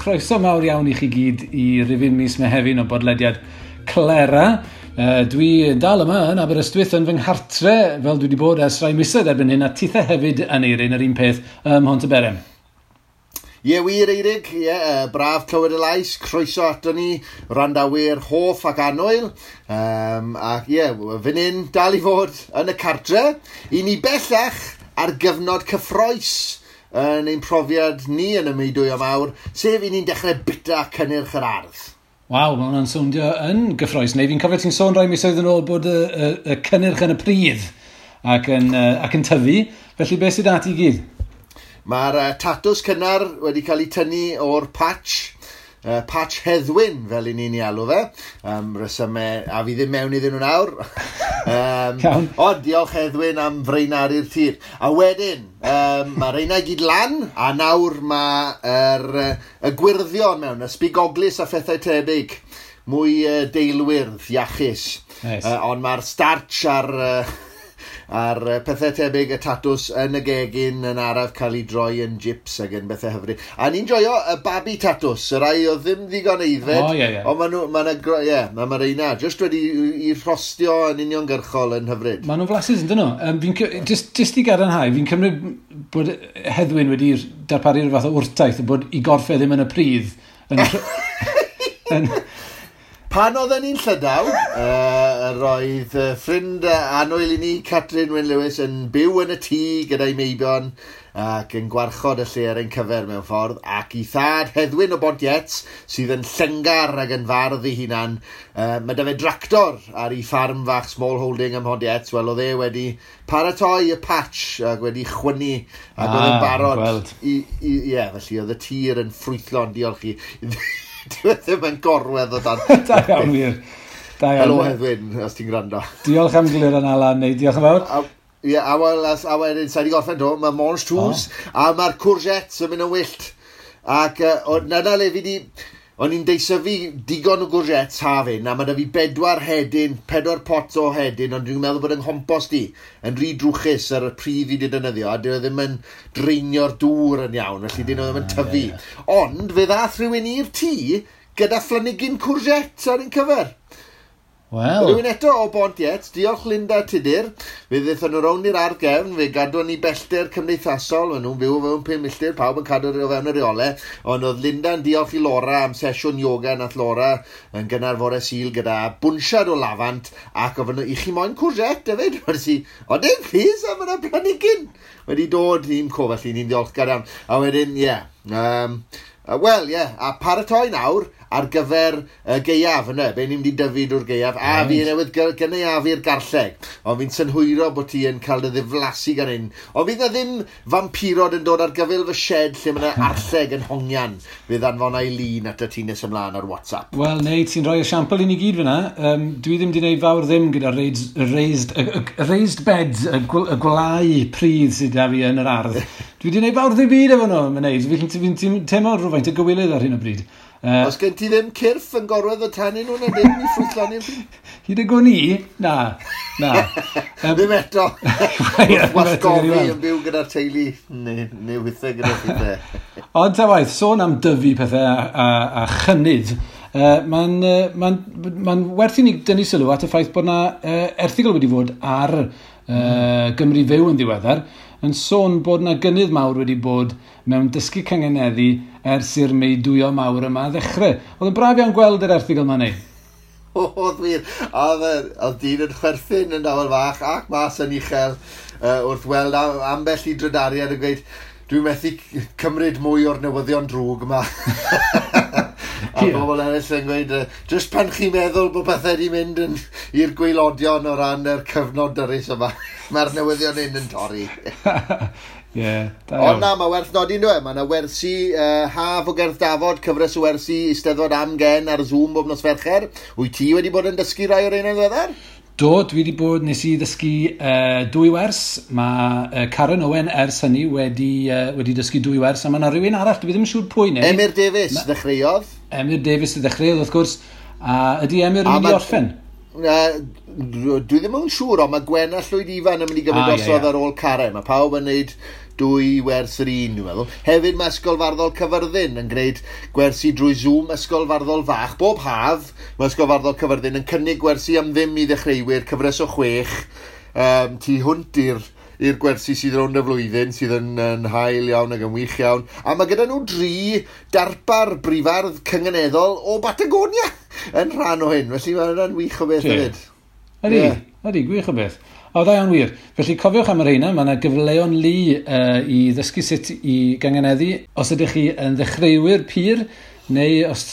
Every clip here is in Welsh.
chroeso mawr iawn i chi gyd i rifyn mis Mehefin o bodlediad Clera. Dwi dal yma yn Aberystwyth yn fy nghartre, fel dwi wedi bod ers rai misoedd erbyn hyn, a tithe hefyd yn Eirin, yr un peth ym Mhontyberem. Ie wir, Eirig, ie, braf clywed y lais, croeso ato ni, wrandawyr hoff ac annwyl. Ac ie, fan hyn dal i fod yn y cartre, i ni bellach ar gyfnod cyffrous yn ein profiad ni yn y meudwyo mawr, sef i ni'n dechrau bita cynnyrch yr ardd. Waw, mae hwnna'n sowndio yn gyffrous. Neu fi'n cofio ti'n sôn rai misoedd yn ôl bod y cynnyrch yn y pridd ac yn tyfu. Felly beth sydd ati i gyd? Mae'r tatws cynnar wedi cael ei tynnu o'r patch, patch Heddwyn, fel i ni'n ei alw fe. Resymau, a fi ddim mewn iddyn nhw nawr. Ond diolch, Heddwyn, am fraenaru'r tir. A wedyn, mae reina i gyd lan, a nawr mae'r y gwyrddion mewn, y sbigoglis a phethau tebyg. Mwy deilwyrdd, iachus. Nice. Ond mae'r starch a'r pethau tebyg, y tatws yn y gegin yn araf cael ei droi yn chips ac yn bethau hyfryd. A ni'n joio y babi tatws, y rai oedd ddim ddigon aeddfed. O, ie, ie. Ond maen nhw, ma' ie, ma' reina just wedi i rhostio yn uniongyrchol yn hyfryd. Maen nhw'n flasus, yn dyn nhw? Just i gadarnhau, fi'n cymryd bod Heddwyn wedi darparu rhyw fath o wrtaith bod i gorff e ddim yn y pridd. Yn Pan oedden ni'n Llydaw, roedd ffrind annwyl i ni, Catrin Wyn Lewis, yn byw yn y tŷ gyda'i meibion ac yn gwarchod y lle ar ein cyfer mewn ffordd, ac i thad Heddwyn o Bontiets, sydd yn llengar ac yn fardd ei hunan, mae da fe dractor ar ei ffarm fach small holding ym Mhontiets. Wel, oedd e wedi paratoi y patch ac wedi chwynnu ac oedd yn Ah, barod gweld. Ie, felly oedd y tir yn ffrwythlon, diolch i. Dyw e ddim yn gorwedd o dan. Da iawn, wir. Da iawn. Helo, Heddwyn, os ti'n gwrando. Diolch am glir yn Alan, neu diolch yn fawr. A, ie, a wel, a wedyn, sa'i di gorffen do, mae mangetous, a mae'r courgettes yn mynd yn wyllt. Ac na le fi di, o'n i'n deisyfu digon o courgettes haf hyn, a mae da fi bedwar hedyn, 4 pot o hedyn, ond dwi'n meddwl bod yng nghompost i yn rhy drwchus ar y pridd fi wedi defnyddio, a dyn nhw ddim yn dreinio'r dŵr yn iawn, felly dyn nhw ddim yn tyfu. Ond fe ddath rhywun i'r tŷ gyda phlanhigyn courgette ar ein cyfer. Wel, Rhywun eto o Bontiet, diolch, Linda Tudur. Fe ddaethon nhw rownd i'r ardd gefn, fe gadwon ni bellter cymdeithasol, maen nhw'n byw o fewn 5 milltir, pawb yn cadw o fewn y reolau. Ond oedd Linda'n diolch i Laura am sesiwn yoga nath Laura yn gynnar fore Sul gyda bwnsiad o lafant, ac ofyn nhw, i chi moyn courgette hefyd? Wedes i, o dim please, a mae'na planhigyn wedi dod i'n co, felly ni'n diolchgar iawn. A wedyn, ie, yeah, wel, ie, yeah, a paratoi nawr ar gyfer y gaeaf yna, be ni'n mynd i dyfu drwy'r gaeaf, a fi newydd gynaeafu'r garlleg, ond fi'n synhwyro bod ti yn cael dy ddiflasu gan hyn. Ond fydd na ddim fampirod yn dod ar gyfyl fy shed lle mae yna arlleg yn hongian. Fydd anfona i lun at y ti nes ymlaen ar WhatsApp. Wel, neu, ti'n rhoi esiampl i ni gyd fyna. Dwi ddim wedi gwneud fawr ddim gyda raised, y raised beds, y gwlau pridd sydd da fi yn yr ardd. Dwi wedi gwneud fawr ddim byd efo nhw, mae'n neud. Fi'n teimlo rhywfaint o gywilydd ar hyn o bryd. Os gen ti ddim cyrff yn gorwedd o tanyn nhw na ddim i ffrwythloni'r pryd? Hyd y gwn i, na, na. Ddim eto. Ie, ddim eto, Wasgofi gawn ni weld. yn byw gyda'r teulu neu weithiau gyda pethau. Ond ta waith, sôn am dyfu pethau a chynnydd, mae'n ma ma werth i ni dynnu sylw at y ffaith bod na erthygl wedi fod ar Gymru Fyw yn ddiweddar, yn sôn bod na gynnydd mawr wedi bod mewn dysgu cyngeneddu ers i'r meudwyo mawr yma ddechrau. Oedd yn braf iawn gweld yr erthygl yma neu. Oedd wir. A oedd dyn yn chwerthin yn dawel fach ac mas yn uchel wrth weld ambell i drydariad yn gweud, "Dwi'n methu cymryd mwy o'r newyddion drwg yma." A bobl eraill yn gweud, "Just pan chi'n meddwl bod pethau wedi mynd yn, i'r gwaelodion o ran yr cyfnod dyrys yma, mae'r newyddion hyn yn torri." Ie, da Ond iawn. na, mae werth nodi nhw e. Mae yna wersi haf o Gerdd Dafod, cyfres o wersi Eisteddfod Amgen ar Zoom bob nos Fercher. Wyt ti wedi bod yn dysgu rai o'r ein yn ddiweddar? Do, dwi wedi bod, nes i ddysgu dwy wers. Mae Karen Owen ers hynny wedi dysgu dwy wers, a mae yna rhywun arall, dwi ddim yn siŵr pwy neu. Emyr Davies ddechreuodd. Emyr Davies ddechreuodd, wrth gwrs. A ydy Emyr yn A mynd i orffen? Dwi ddim yn siŵr, ond mae Gwen a Llwyd Ifan yn mynd i gymryd drosodd ar ôl Karen. Mae pawb yn gwneud 2 wers yr un, dwi'n meddwl. Hefyd mae Ysgol Farddol Cyfyrddin yn gwneud gwersi drwy Zoom, Ysgol Farddol Fach. Bob haf, mae Ysgol Farddol Cyfyrddin yn cynnig gwersi am ddim i ddechreuwyr, cyfres o 6, tu hwnt i'r gwersi sydd rownd y flwyddyn, sydd yn hael iawn ac yn wych iawn. A mae gyda nhw 3 darpar brifardd cynganeddol o Batagonia yn rhan o hyn. Felly mae hwnna'n wych o beth hefyd. Ydy, ydy, gwych o beth. O, da iawn wir. Felly cofiwch am yr rheina, mae yna gyfleon lu i ddysgu sut i gynganeddu. Os ydych chi yn ddechreuwyr pur, neu os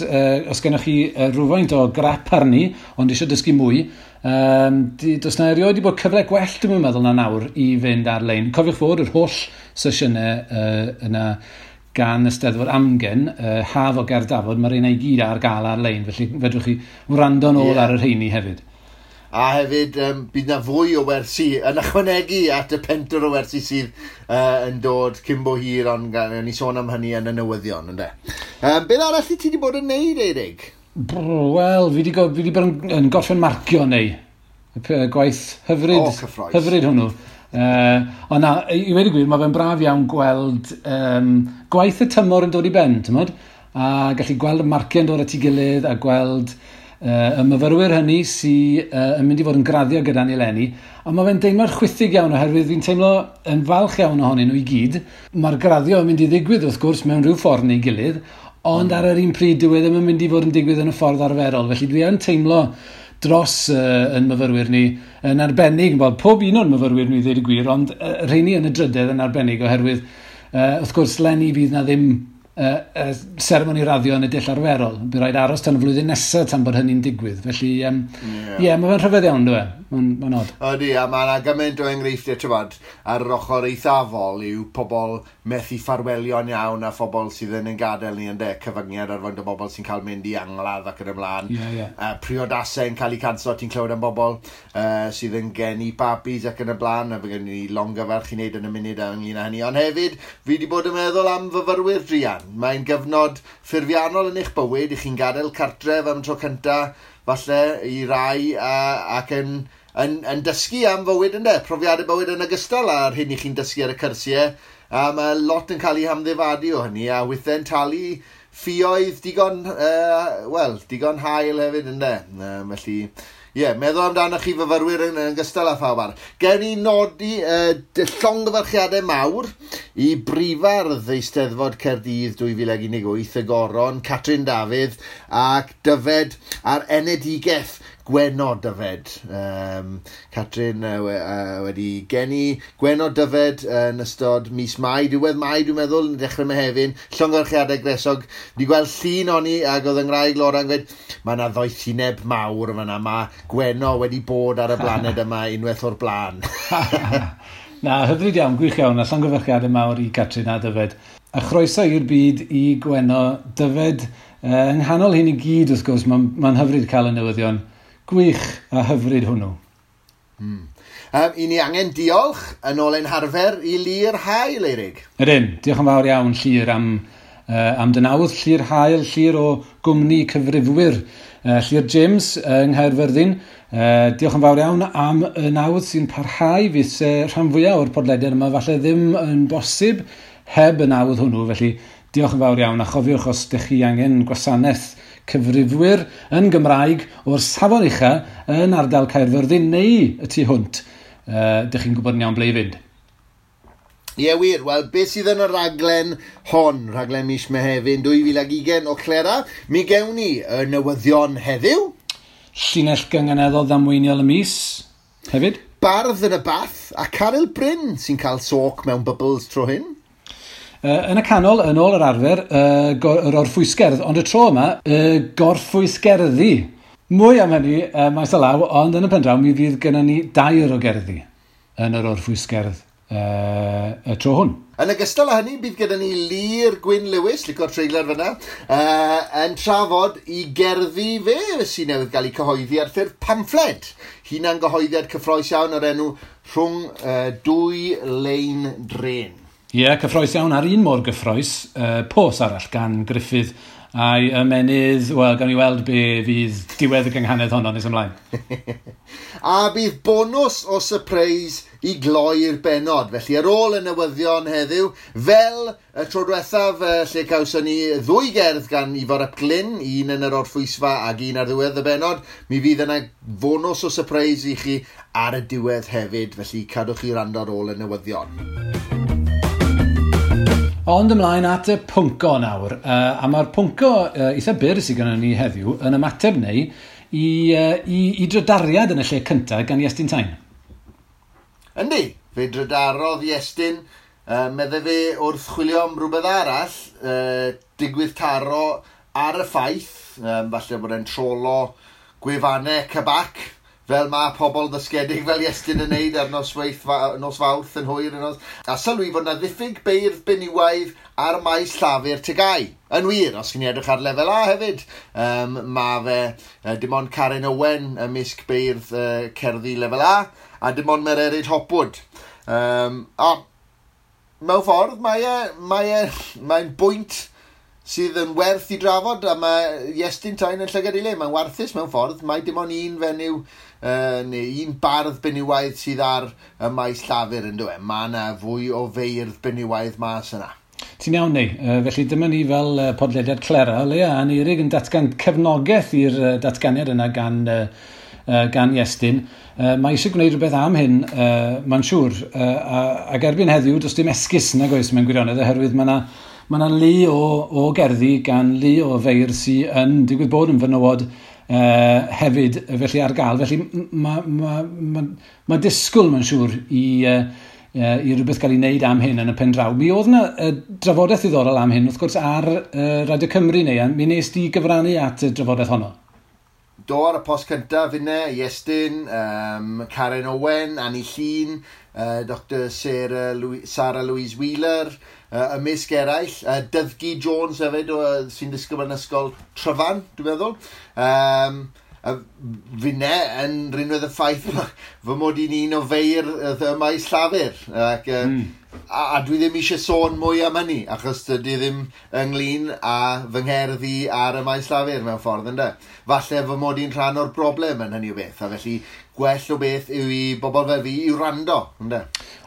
gennych chi rhywfaint o grap arni, ond eisiau dysgu mwy, does na erioed wedi bod cyfle gwell, dwi'n meddwl, na nawr i fynd ar-lein. Cofiwch fod yr holl sesiynau yna gan y Steddfod Amgen, Haf o Gerdafod, mae'r rheina i gyd ar gael ar-lein, felly fedrwch chi wrando nôl ar y rheini hefyd. A hefyd, bydd na fwy o wersi yn ychwanegu at y 4 o wersi sydd yn dod cyn bo hir, ond ni sôn am hynny yn y newyddion, ynde. Beth arall i ti wedi bod yn neud, Eirig? Wel, fi wedi bod yn gorffen marcio neu. Gwaith hyfryd, hyfryd hwnnw. Ond na, i wedi gwir, mae fe'n braf iawn gweld gwaith y tymor yn dod i ben, ti'mod? A gallu gweld y marciau yn dod at ei gilydd a gweld y myfyrwyr hynny sydd yn mynd i fod yn graddio gyda ni eleni. A mae fe'n deimlad chwithig iawn oherwydd fi'n teimlo yn falch iawn ohonyn nhw i gyd. Mae'r graddio yn mynd i ddigwydd wrth gwrs mewn rhyw ffordd neu gilydd, ond ar yr un pryd dyw e ddim yn mynd i fod yn digwydd yn y ffordd arferol. Felly dwi yn teimlo dros yn myfyrwyr ni yn arbennig, wel, pob un o'n myfyrwyr ni ddweud y gwir, ond rheini yn y drydedd yn arbennig oherwydd wrth gwrs leni fydd na ddim seremoni raddio yn y dull arferol. Bydd rhaid aros tan y flwyddyn nesaf tan bod hynny'n digwydd. Felly, mae fe'n rhyfedd iawn, dwi e? Mae'n od. Ydy, a mae yna gymaint o enghreifftiau, ti'mod, ar yr ochr eithafol yw pobl methu ffarwelio'n iawn a phobl sydd yn ein gadael ni, ynde, cyfyngiad ar faint o bobl sy'n cael mynd i angladd ac yn ymlaen. Priodasau yn cael eu canslo, ti'n clywed am bobl sydd yn geni babis ac yn y blaen, a fe gen i longyfarch i wneud yn y munud ynglyn â hynny. Ond hefyd, fi wedi bod yn meddwl am fyfyrwyr druan. Mae'n gyfnod ffurfiannol yn eich bywyd, i chi'n gadael cartref am tro cynta, falle i rai, ac yn dysgu am fywyd, ynde, profiadau bywyd yn ogystal â'r hyn i chi'n dysgu ar y cyrsiau, a mae lot yn cael ei hamddifadu o hynny, a weithiau'n talu ffioedd digon, digon hael hefyd, ynde. Felly, ie, meddwl amdano chi fyfyrwyr yn ogystal â phawb arall. Gewn ni nodi llongyfarchiadau mawr i brifardd Eisteddfod Caerdydd 2018, y Goron, Catrin Dafydd ac Dyfed a'r enedigaeth Gwenno Dyfed. Catrin wedi geni Gwenno Dyfed yn ystod mis Mai, diwedd Mai dwi'n meddwl, yn dechrau Mehefin, llongyfarchiadau gresog. Wedi gweld llun oni ac oedd yng Nghymraeg Laura yn gweud, mae yna ddoethineb mawr yma, mae Gwenno wedi bod ar y blaned yma unwaith o'r blaen. Na, hyfryd iawn, gwych iawn, a llongyfarchiadau mawr i Catrin a Dyfed. A chroeso i'r byd i Gwenno Dyfed. Yng nghanol hyn i gyd, wrth gwrs, mae'n hyfryd cael y newyddion. Gwych a hyfryd hwnnw. I ni angen diolch yn ôl ein harfer i Llyr Hael, Eirig. Ydyn, diolch yn fawr iawn Llyr am dy nawdd. Llyr Hael, Llyr o gwmni cyfrifwyr. Llyr James yng Nghaerfyrddin. Diolch yn fawr iawn am y nawdd sy'n parhau. Fydd rhan fwyaf o'r podlediad yma falle ddim yn bosib heb y nawdd hwnnw. Felly diolch yn fawr iawn, a chofiwch os ydych chi angen gwasanaeth cyfrifwyr yn Gymraeg o'r safon ucha yn ardal Caerfyrddin neu y tu hwnt, dych chi'n gwybod yn iawn ble i fynd. Ie wir, wel beth sydd yn y raglen hon, rhaglen mis Mehefin 2020 o Clera, mi gewn ni y newyddion heddiw. Llinell gynganeddol ddamweiniol y mis hefyd. Bardd yn y bath a Caryl Bryn sy'n cael soc mewn bubbles tro hyn. Yn y canol, yn ôl yr arfer, yr orffwysgerdd, ond y tro yma, y gorffwysgerddi. Mwy am hynny maes o law, ond yn y pen draw mi fydd gennym ni 2 o gerddi yn yr orffwysgerdd y tro hwn. Yn ogystal â hynny, bydd gyda ni Llyr Gwyn Lewis, licio'r treiglad fyna, yn trafod i gerddi fe sy'n newydd gael ei cyhoeddi ar ffurf pamffled. Hunan gyhoeddiad cyffrous iawn o'r enw Rhwng Dwy Lein Dren. Ie, cyffrous iawn, a'r un mor gyffrous, pos arall gan Gruffydd a'i ymenydd, wel, gawn ni weld be fydd diwedd y gynghanedd honno nes ymlaen. A bydd bonws o surprise i gloi'r bennod. Felly ar ôl y newyddion heddiw, fel y tro diwethaf lle cawson ni ddwy gerdd gan Ifor ap Glyn, un yn yr orffwysfa ac un ar ddiwedd y bennod, mi fydd yna fonws o surprise i chi ar y diwedd hefyd, felly cadwch chi wrando ar ôl y newyddion. Ond ymlaen at y pwnco nawr, a mae'r pwnco eitha byr sydd gennym ni heddiw yn ymateb neu i drydariad yn y lle cyntaf gan Iestyn Tyne. Yndi, fe drydarodd Iestyn, medde fe wrth chwilio am rhywbeth arall, digwydd taro ar y ffaith, falle bod e'n trolo gwefannau cabac, fel mae pobl ddysgedig fel Iestyn yn neud ar nos Fawrth yn hwyr. A sylwi fod yna ddiffyg beirdd benywaidd ar maes llafur TGAU. Yn wir, os chi'n edrych ar lefel A hefyd, mae fe dim ond Karen Owen ymysg beirdd cerddi lefel A, a dim ond Mererid Hopwood. A mewn ffordd, mae'n bwynt sydd yn werth i drafod, a mae Iestyn Tyne yn llygad ei le. Mae'n warthus mewn ffordd. Mae dim ond un fenyw, neu un bardd benywaidd sydd ar y maes llafur yn dweud. Mae yna fwy o feirdd benywaidd mas yna. Ti'n iawn, neu. Felly dyma ni fel podlediad Clera, o leia, Aneurig yn datgan cefnogaeth i'r datganiad yna gan Iestyn. Mae eisiau gwneud rhywbeth am hyn, mae'n siŵr. Ac erbyn heddiw, does dim esgus nag oes mewn gwirionedd, oherwydd mae yna lu o gerddi gan lu o feirdd sydd yn digwydd bod yn fenywod hefyd, felly ar gael. Felly mae disgwyl, mae'n siŵr, i rhywbeth gael ei wneud am hyn yn y pen draw. Mi oedd yna drafodaeth ddiddorol am hyn, wrth gwrs, ar Radio Cymru neu, mi nes di gyfrannu at y drafodaeth honno. Do, ar y post cyntaf finne, Iestyn, Karen Owen, Annie Llun, Dr Sarah Louise Wheeler, ymysg eraill, Dyddgu Jones hefyd, sy'n disgybl yn ysgol Tryfan, dwi'n meddwl. Finne yn rinwedd y ffaith fy mod i'n un o feirdd y maes llafur. Ac, a dwi ddim eisiau sôn mwy am hynny, achos dydy ddim ynglyn â fy ngherdd i ar y maes llafur mewn ffordd, ynde. Falle fy mod i'n rhan o'r broblem yn hynny o beth, a felly gwell o beth yw i bobl fel fi i wrando, ynde.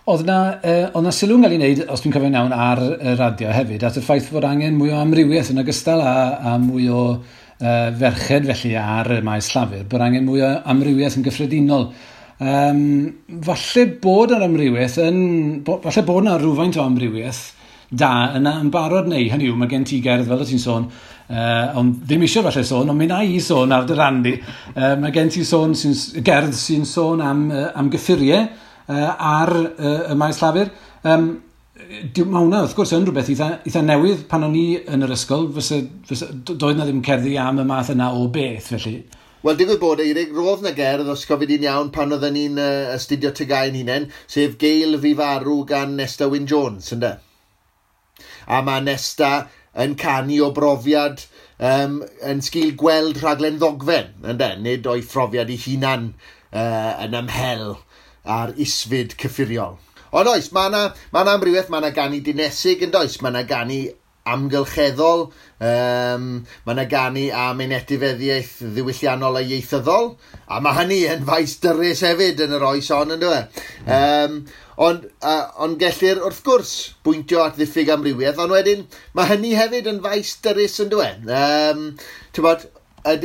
Oedd yna sylw'n cael ei wneud, os dwi'n cofio'n iawn, ar y radio hefyd, at y ffaith fod angen mwy o amrywiaeth yn ogystal a mwy o ferched felly ar y maes llafur, bod angen mwy o amrywiaeth yn gyffredinol. Falle bod yr amrywiaeth falle bod yna rhywfaint o amrywiaeth da yna yn barod neu, hynny yw, mae gen ti gerdd fel o ti'n sôn, ond ddim eisiau falle sôn, ond mi na i sôn ar dy ran di. Mae gen ti sôn gerdd sy'n sôn am gyffuriau ar y maes llafur. Mae hwnna, wrth gwrs, yn rhywbeth eitha newydd pan o'n i yn yr ysgol, doedd na ddim cerddi am y math yna o beth, felly. Wel, digwydd bod, Eirig, roedd na gerdd, os cofio di'n iawn, pan oedden ni'n astudio TGAU hunain, sef Gael Fi Farw gan Nesta Wyn Jones, ynde? A mae Nesta yn canu o brofiad yn sgil gweld rhaglen ddogfen, ynde? Nid o'i phrofiad ei hunan yn ymhel ar isfyd cyffuriol. Ond oes, mae yna amrywiaeth, mae yna ganu dinesig yn does, mae yna ganu amgylcheddol, mae yna ganu am ein etifeddiaeth ddiwylliannol a ieithyddol, a mae hynny yn faes dyrys hefyd yn yr oes hon, yn dyw. Ond gellir, wrth gwrs, bwyntio at ddiffyg amrywiaeth, ond wedyn mae hynny hefyd yn faes dyrys, yn dyw e. Ti'n bod, y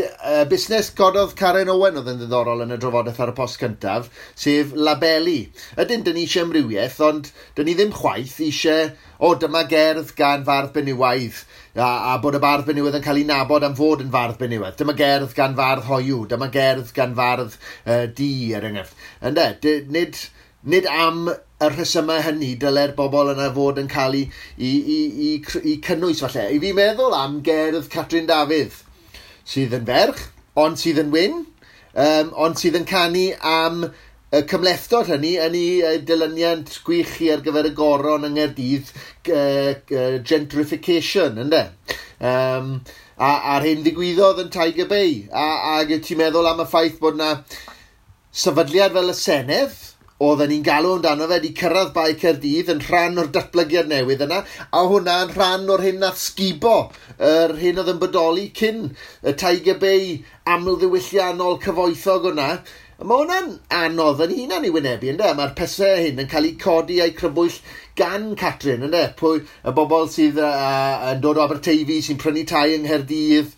busnes gododd Karen Owen oedd yn ddiddorol yn y drafodaeth ar y post cyntaf, sef labelu. Ydyn, dyn ni eisiau amrywiaeth, ond dyn ni ddim chwaith eisiau, dyma gerdd gan fardd benywaidd, a bod y bardd benywaidd yn cael ei nabod am fod yn fardd benywaidd. Dyma gerdd gan fardd hoyw, dyma gerdd gan fardd du, er enghraifft. Ynde, nid am y rhesymau hynny dyle'r bobl yna fod yn cael ei cynnwys falle. I fi meddwl am gerdd Catrin Dafydd, sydd yn ferch, ond sydd yn wyn, ond sydd yn canu am y cymhlethdod hynny yn ei dilyniant gwych chi ar gyfer y goron yng Nghaerdydd, gentrification, ynde? A'r hyn ddigwyddodd yn Tiger Bay. Ac ti'n meddwl am y ffaith bod yna sefydliad fel y Senedd oedden ni'n galw amdano fe wedi cyrraedd Bae Caerdydd yn rhan o'r datblygiad newydd yna, a hwnna yn rhan o'r hyn nath sgubo, yr hyn oedd yn bodoli cyn y Tiger Bay amlddiwylliannol cyfoethog hwnna. Mae hwnna'n anodd yn hunan i wynebu, ynddo? Mae'r pesau hyn yn cael eu codi a'u crybwyll gan Catrin, ynddo? Pwy, y bobl sydd yn dod o Aberteifi, sy'n prynu tai yng Nghaerdydd,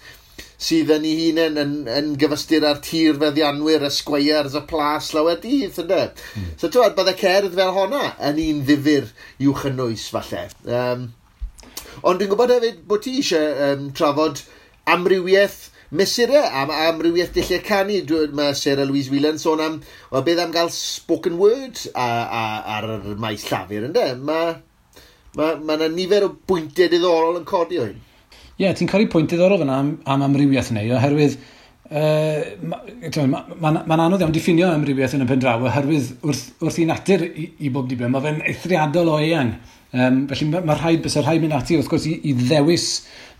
sydd yn ei hunain yn gyfystyr â'r tir feddianwyr, y squires, y plas lawer dydd, ynddo? So, ti'n bydde cerdd fel honna yn un ddifyr i'w chynnwys, falle. Ond dwi'n gwybod hefyd bod ti eisiau trafod amrywiaeth mesurau am amrywiaeth dulliau canu. Mae Sarah Louise Whelan sôn am, wel, beth am gael spoken word ar y maes llafur, ynddo? Mae yna nifer o bwyntiau diddorol yn codi o hyn. Ie, yeah, ti'n codi pwynt diddorol fyna am amrywiaeth neu, oherwydd mae'n anodd iawn diffinio amrywiaeth yn y pen draw, oherwydd wrth i natur i bob diben, mae fe'n eithriadol o eang. Felly mae rhaid, bysa rhaid mynd ati, wrth gwrs, i ddewis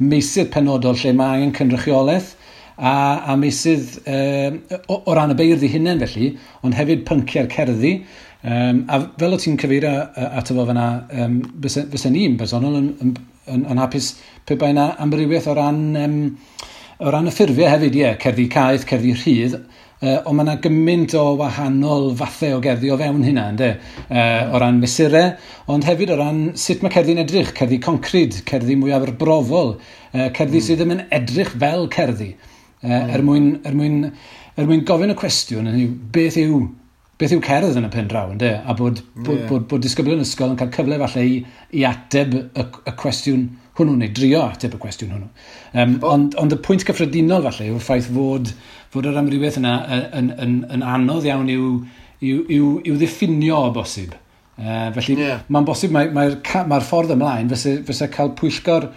meysydd penodol lle mae angen cynrychiolaeth, a meysydd o ran y beirdd eu hunain felly, ond hefyd pynciau'r cerddi. A fel o ti'n cyfeirio ato fo fyna, fysa ni'n bersonol yn hapus pe bai yna amrywiaeth o ran y ffurfiau hefyd, ie, cerddi caeth, cerddi rhydd, ond mae yna gymaint o wahanol fathau o gerddi o fewn hynna, ynde? O ran mesurau, ond hefyd o ran sut mae cerddi'n edrych, cerddi concrid, cerddi mwy arbrofol, cerddi sydd ddim yn edrych fel cerddi. Er mwyn gofyn y cwestiwn, hynny yw, beth yw cerdd yn y pen draw, ynde? A bod disgyblion ysgol yn cael cyfle falle i ateb y cwestiwn hwnnw, neu drio ateb y cwestiwn hwnnw. Ond y pwynt cyffredinol falle yw'r ffaith fod yr amrywiaeth yna yn anodd iawn i'w ddiffinio o bosib. Felly mae'n bosib, mae'r ffordd ymlaen fysa cael pwyllgor,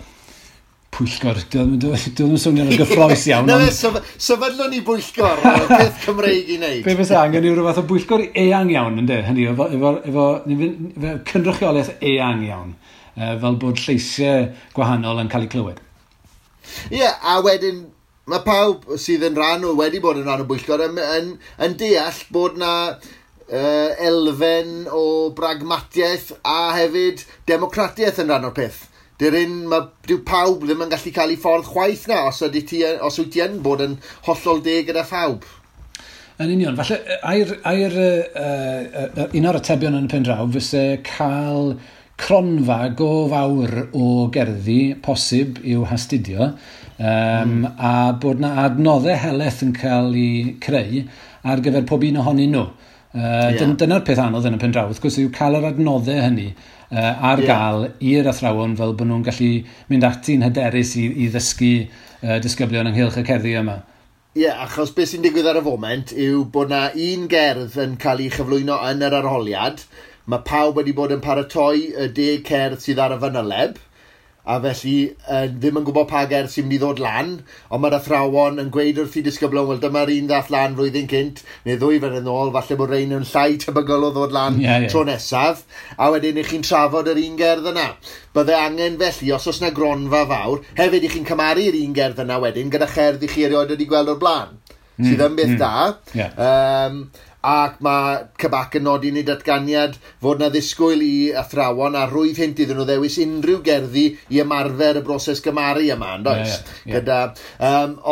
dwi ddim yn swnio'n gyffrous iawn. Na fe, sefydlwn ni bwyllgor, peth Cymreig i wneud. Be fysa angen yw rhyw fath o bwyllgor eang iawn, ynddo? Hynny, efo cynrychiolaeth eang iawn, fel bod lleisiau gwahanol yn cael eu clywed. Ie, a wedyn, mae pawb sydd yn rhan o, wedi bod yn rhan o bwyllgor, yn deall bod na elfen o bragmatiaeth a hefyd democratiaeth yn rhan o'r peth. Dyw pawb ddim yn gallu cael ei ffordd chwaith na, os wyt ti yn bod yn hollol deg gyda phawb. Yn union, falle, un o'r atebion yn y pen draw fyse cael cronfa go fawr o gerddi posib i'w hastudio, a bod na adnoddau helaeth yn cael eu creu ar gyfer pob un ohonyn nhw. Dyna'r peth anodd yn y pen draw, wrth gwrs, yw cael yr adnoddau hynny ar gael i'r athrawon fel bod nhw'n gallu mynd ati'n hyderus i ddysgu disgyblion ynghylch y cerddi yma. Ie, achos beth sy'n digwydd ar y foment yw bod na un gerdd yn cael ei chyflwyno yn yr arholiad. Mae pawb wedi bod yn paratoi y 10 cerdd sydd ar y fanyleb, a felly ddim yn gwybod pa gerdd sy'n mynd i ddod lan, ond mae'r athrawon yn gweud wrth i disgyblion, wel dyma'r un ddath lan flwyddyn cynt, neu 2 flynedd yn ôl, falle bod rhain yn llai tebygol o ddod lan tro nesaf, a wedyn i chi'n trafod yr un gerdd yna. Bydde angen felly, os oes na gronfa fawr, hefyd i chi'n cymharu'r un gerdd yna wedyn, gyda cherdd i chi erioed wedi gweld o'r blaen, sydd yn beth da. Ac mae CBAC yn nodi yn ei datganiad fod na ddisgwyl i athrawon a rwydd hynt iddyn nhw ddewis unrhyw gerddi i ymarfer y broses gymaru yma, yn does?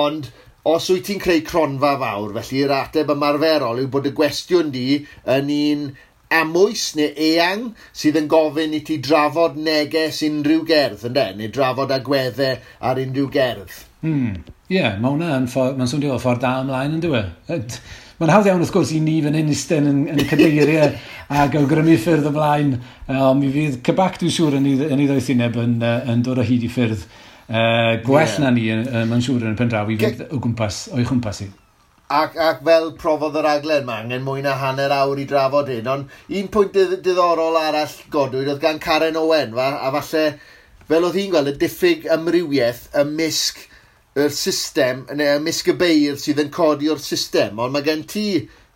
Ond os wyt ti'n creu cronfa fawr, felly yr ateb ymarferol yw bod y gwestiwn di yn un amwys neu eang sydd yn gofyn i ti drafod neges unrhyw gerdd, ynde? Neu drafod agweddau ar unrhyw gerdd. Ie, mae hwnna yn mae'n swnio fel ffordd da ymlaen, yn dyw e? Mae'n hawdd iawn, wrth gwrs, i ni fan hyn eistedd yn cadeiriau ac awgrymu ffyrdd ymlaen. Ond mi fydd CBAC, dwi'n siŵr, yn ei ddoethineb yn dod o hyd i ffyrdd gwell na ni, mae'n siŵr, yn y pen draw i fynd o'i chwmpas i. Ac fel profodd yr raglen, mae angen mwy na hanner awr i drafod hyn. Ond un pwynt diddorol arall godwyd oedd gan Karen Owen, a falle, fel oedd hi'n gweld, y diffyg amrywiaeth ymysg yr system, neu ymysg y beirdd sydd yn codi o'r system, ond mae gen ti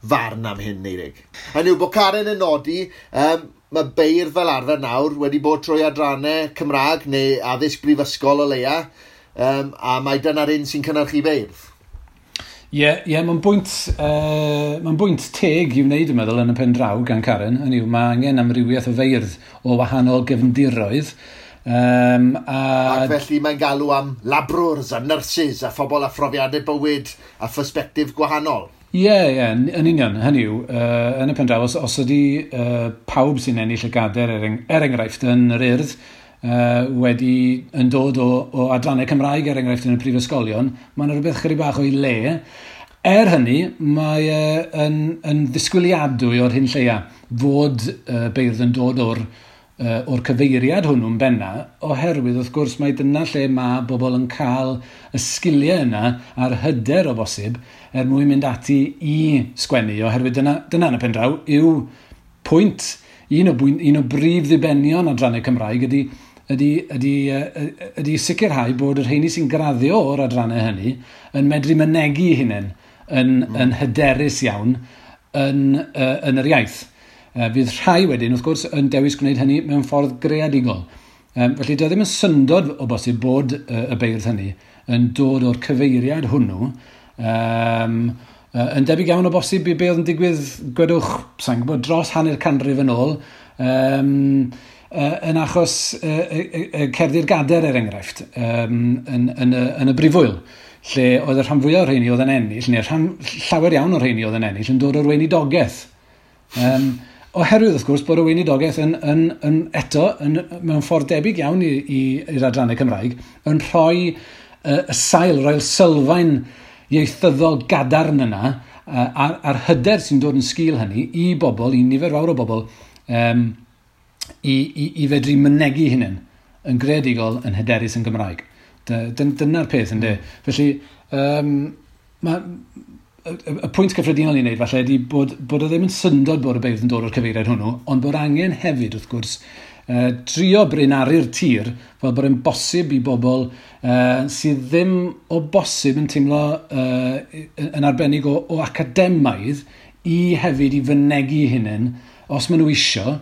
farn am hyn, Eirig. Hynny yw bod Karen yn nodi, mae beirdd fel arfer nawr wedi bod trwy adrannau Cymraeg neu addysg brifysgol o leia, a mae dyna'r un sy'n cynhyrchu beirdd. Ie, yeah, mae'n bwynt teg i wneud, dwi'n meddwl, yn y pen draw gan Karen. Hynny yw, mae angen amrywiaeth o feirdd o wahanol gefndiroedd. Ac felly mae'n galw am labrwrs a nyrsys a phobl â phrofiadau bywyd a phersbectif gwahanol. Ie, yn union. Hynny yw, yn y pen draw, os ydy pawb sy'n ennill y gadair, er enghraifft, yn yr Urdd, wedi yn dod o adrannau Cymraeg, er enghraifft, yn y prifysgolion, mae'n rhywbeth chydig bach o'i le. Er hynny, mae yn ddisgwyliadwy o'r hyn lleia fod beirdd yn dod o'r cyfeiriad hwnnw'n benna, oherwydd wrth gwrs mae dyna lle mae bobl yn cael y sgiliau yna a'r hyder o bosib er mwyn mynd ati i sgwennu, oherwydd dyna yn y pen draw yw pwynt, un o brif ddibenion adrannau Cymraeg ydy sicrhau bod y rheini sy'n graddio o'r adrannau hynny yn medru mynegi hunain yn hyderus iawn yn yr iaith. Fydd rhai wedyn, wrth gwrs, yn dewis gwneud hynny mewn ffordd greadigol. Felly, dyw e ddim yn syndod o bosib bod y beirdd hynny yn dod o'r cyfeiriad hwnnw. Yn debyg iawn o bosib i be oedd yn digwydd, gwedwch, sa'n gwybod, dros hanner canrif yn ôl, yn achos cerddi'r gadair, er enghraifft, yn y brifwyl, lle oedd y rhan fwyaf o'r rheini oedd yn ennill, neu llawer iawn o'r rheini oedd yn ennill, yn dod o'r weinidogaeth. Oherwydd, wrth gwrs, bod y weinidogaeth yn eto, mewn ffordd debyg iawn i'r adrannau Cymraeg, yn rhoi y sail, rhoi'r sylfaen ieithyddol gadarn yna, a'r hyder sy'n dod yn sgil hynny i bobl, i nifer fawr o bobl, i fedru mynegi hunain yn greadigol, yn hyderus yn Gymraeg. Dyna'r peth, ynddo. Felly, y pwynt cyffredinol i wneud falle ydy bod o ddim yn syndod bod y beirdd yn dod o'r cyfeiriad hwnnw, ond bod angen hefyd, wrth gwrs, drio brinaru'r tir fel bod e'n bosib i bobl sydd ddim o bosib yn teimlo yn arbennig o academaidd i hefyd i fynegi hunain, os maen nhw isio,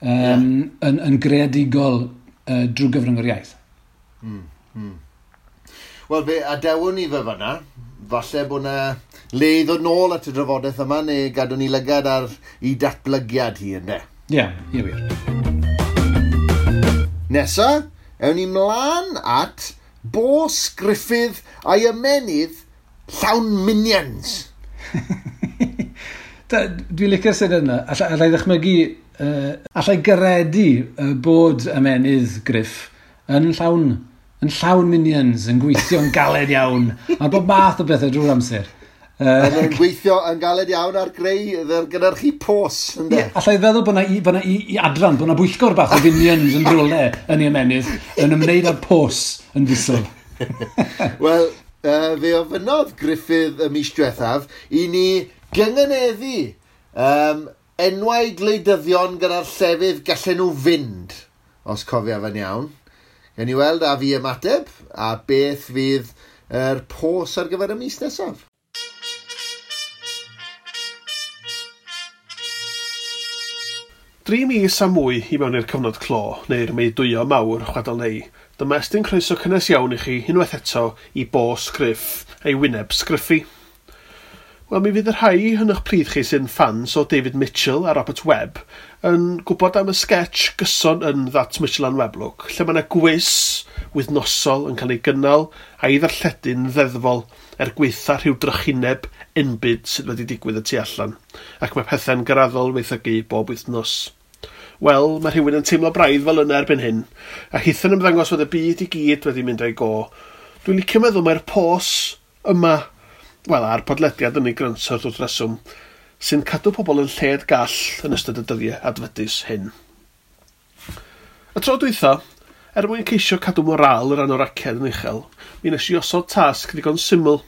yn greadigol drwy gyfrwng yr iaith. Wel, fe adewon ni fe fyna. Falle bod na le i ddod nôl at y drafodaeth yma, neu gadw ni lygad ar i datblygiad hi, ynddo? Ie, wir. Nesa, ewn ni mlaen at Bos Gruffydd a'i ymenydd llawn minions. Dwi'n licio'r syniad yna. Allai ddychmygu, allai gredu bod ymenydd Gruff yn llawn minions, yn gweithio'n galed iawn, ar bob math o bethau drwy'r amser. Yn gweithio yn galed iawn ar greu gynhyrchu pos, ynddo? Yeah, allai feddwl bod na i adran, bod na bwyllgor bach o finions yn rhywle yn ei ymenydd, yn ymwneud â'r pos yn fisol. Wel, fe ofynnodd Gruffydd y mis diwethaf i ni gyngeneddu enwau gwleidyddion gyda'r llefydd gallen nhw fynd, os cofiaf yn iawn. Gawn ni weld a fi ymateb a beth fydd yr pos ar gyfer y mis nesaf. Dri mis a mwy i mewn i'r cyfnod clo, neu'r meudwyo mawr, chwadal neu, dyma estyn croeso cynnes iawn i chi unwaith eto i Bos Gruff a'i wyneb sgriffi. Wel, mi fydd y rhai yn eich plith chi sy'n ffans o David Mitchell a Robert Webb yn gwybod am y sketch gyson yn That Mitchell and Webb Look, lle mae yna gwis wythnosol yn cael ei gynnal a'i ddarlledu'n ddeddfol er gweitha rhyw drychineb enbyd sydd wedi digwydd y tu allan, ac mae pethau'n graddol weithygu bob wythnos. Wel, mae rhywun yn teimlo braidd fel yna erbyn hyn, a hitha'n ymddangos fod y byd i gyd wedi mynd o'i go. Dwi'n licio meddwl mae'r pos yma, wel, a'r podlediad yn ei grynswr wrth reswm, sy'n cadw pobl yn lled gall yn ystod y dyddiau adfydus hyn. Y tro dwytha, er mwyn ceisio cadw moral yr anoraced yn uchel, mi nes i osod tasg ddigon syml.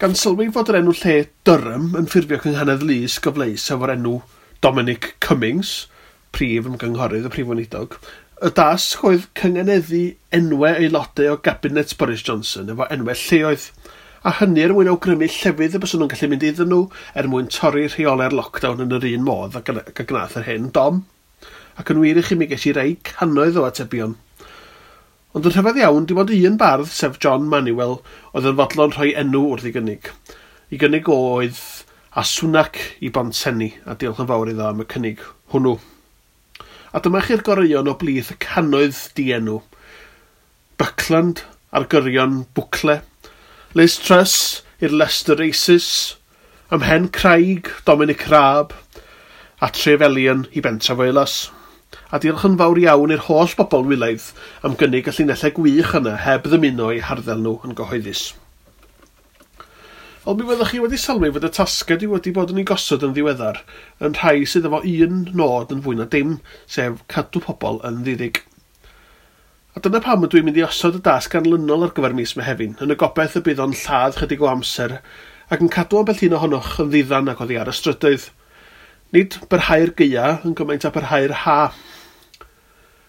Gan sylwi fod yr enw lle Durham yn ffurfio cynghanedd lys gyfleus efo'r enw Dominic Cummings, prif ymgynghorydd y prif weinidog, y dasg oedd cyngeneddu enwau aelodau o gabinet Boris Johnson efo enwau lleoedd, a hynny er mwyn awgrymu llefydd y byswn nhw'n gallu mynd iddyn nhw er mwyn torri rheolau'r lockdown yn yr un modd ac a gnath yr hen Dom. Ac yn wir i chi mi ges i rei cannoedd o atebion. Ond yn rhyfedd iawn, dim ond un bardd, sef John Manuel, oedd yn fodlon rhoi enw wrth ei gynnig. I gynnig oedd a Swnac i Bontsenni, a diolch yn fawr iddo am y cynnig hwnnw. A dyma chi'r goreuon o blith y cannoedd dienw. Buckland ar gyrion Bwcle, Liz Truss i'r Leicester Races, Ymhen Craig, Dominic Raab, a Trefelion i Bentref Oelas. A diolch yn fawr iawn i'r holl bobl wylaidd am gynnig y llinellau gwych yna heb ddymuno eu harddel nhw yn gyhoeddus. Wel, mi fyddwch chi wedi sylwi fod y tasgau dwi wedi bod yn ei gosod yn ddiweddar yn rhai sydd efo un nod yn fwy na dim, sef cadw pobl yn ddiddig. A dyna pam ydw i'n mynd i osod y dasg ganlynol ar gyfer mis Mehefin, yn y gobaith y bydd o'n lladd chydig o amser ac yn cadw ambell un ohonoch yn ddiddan ac oddi ar y strydoedd. Nid byrhau'r gaea yn gymaint â byrhau'r ha.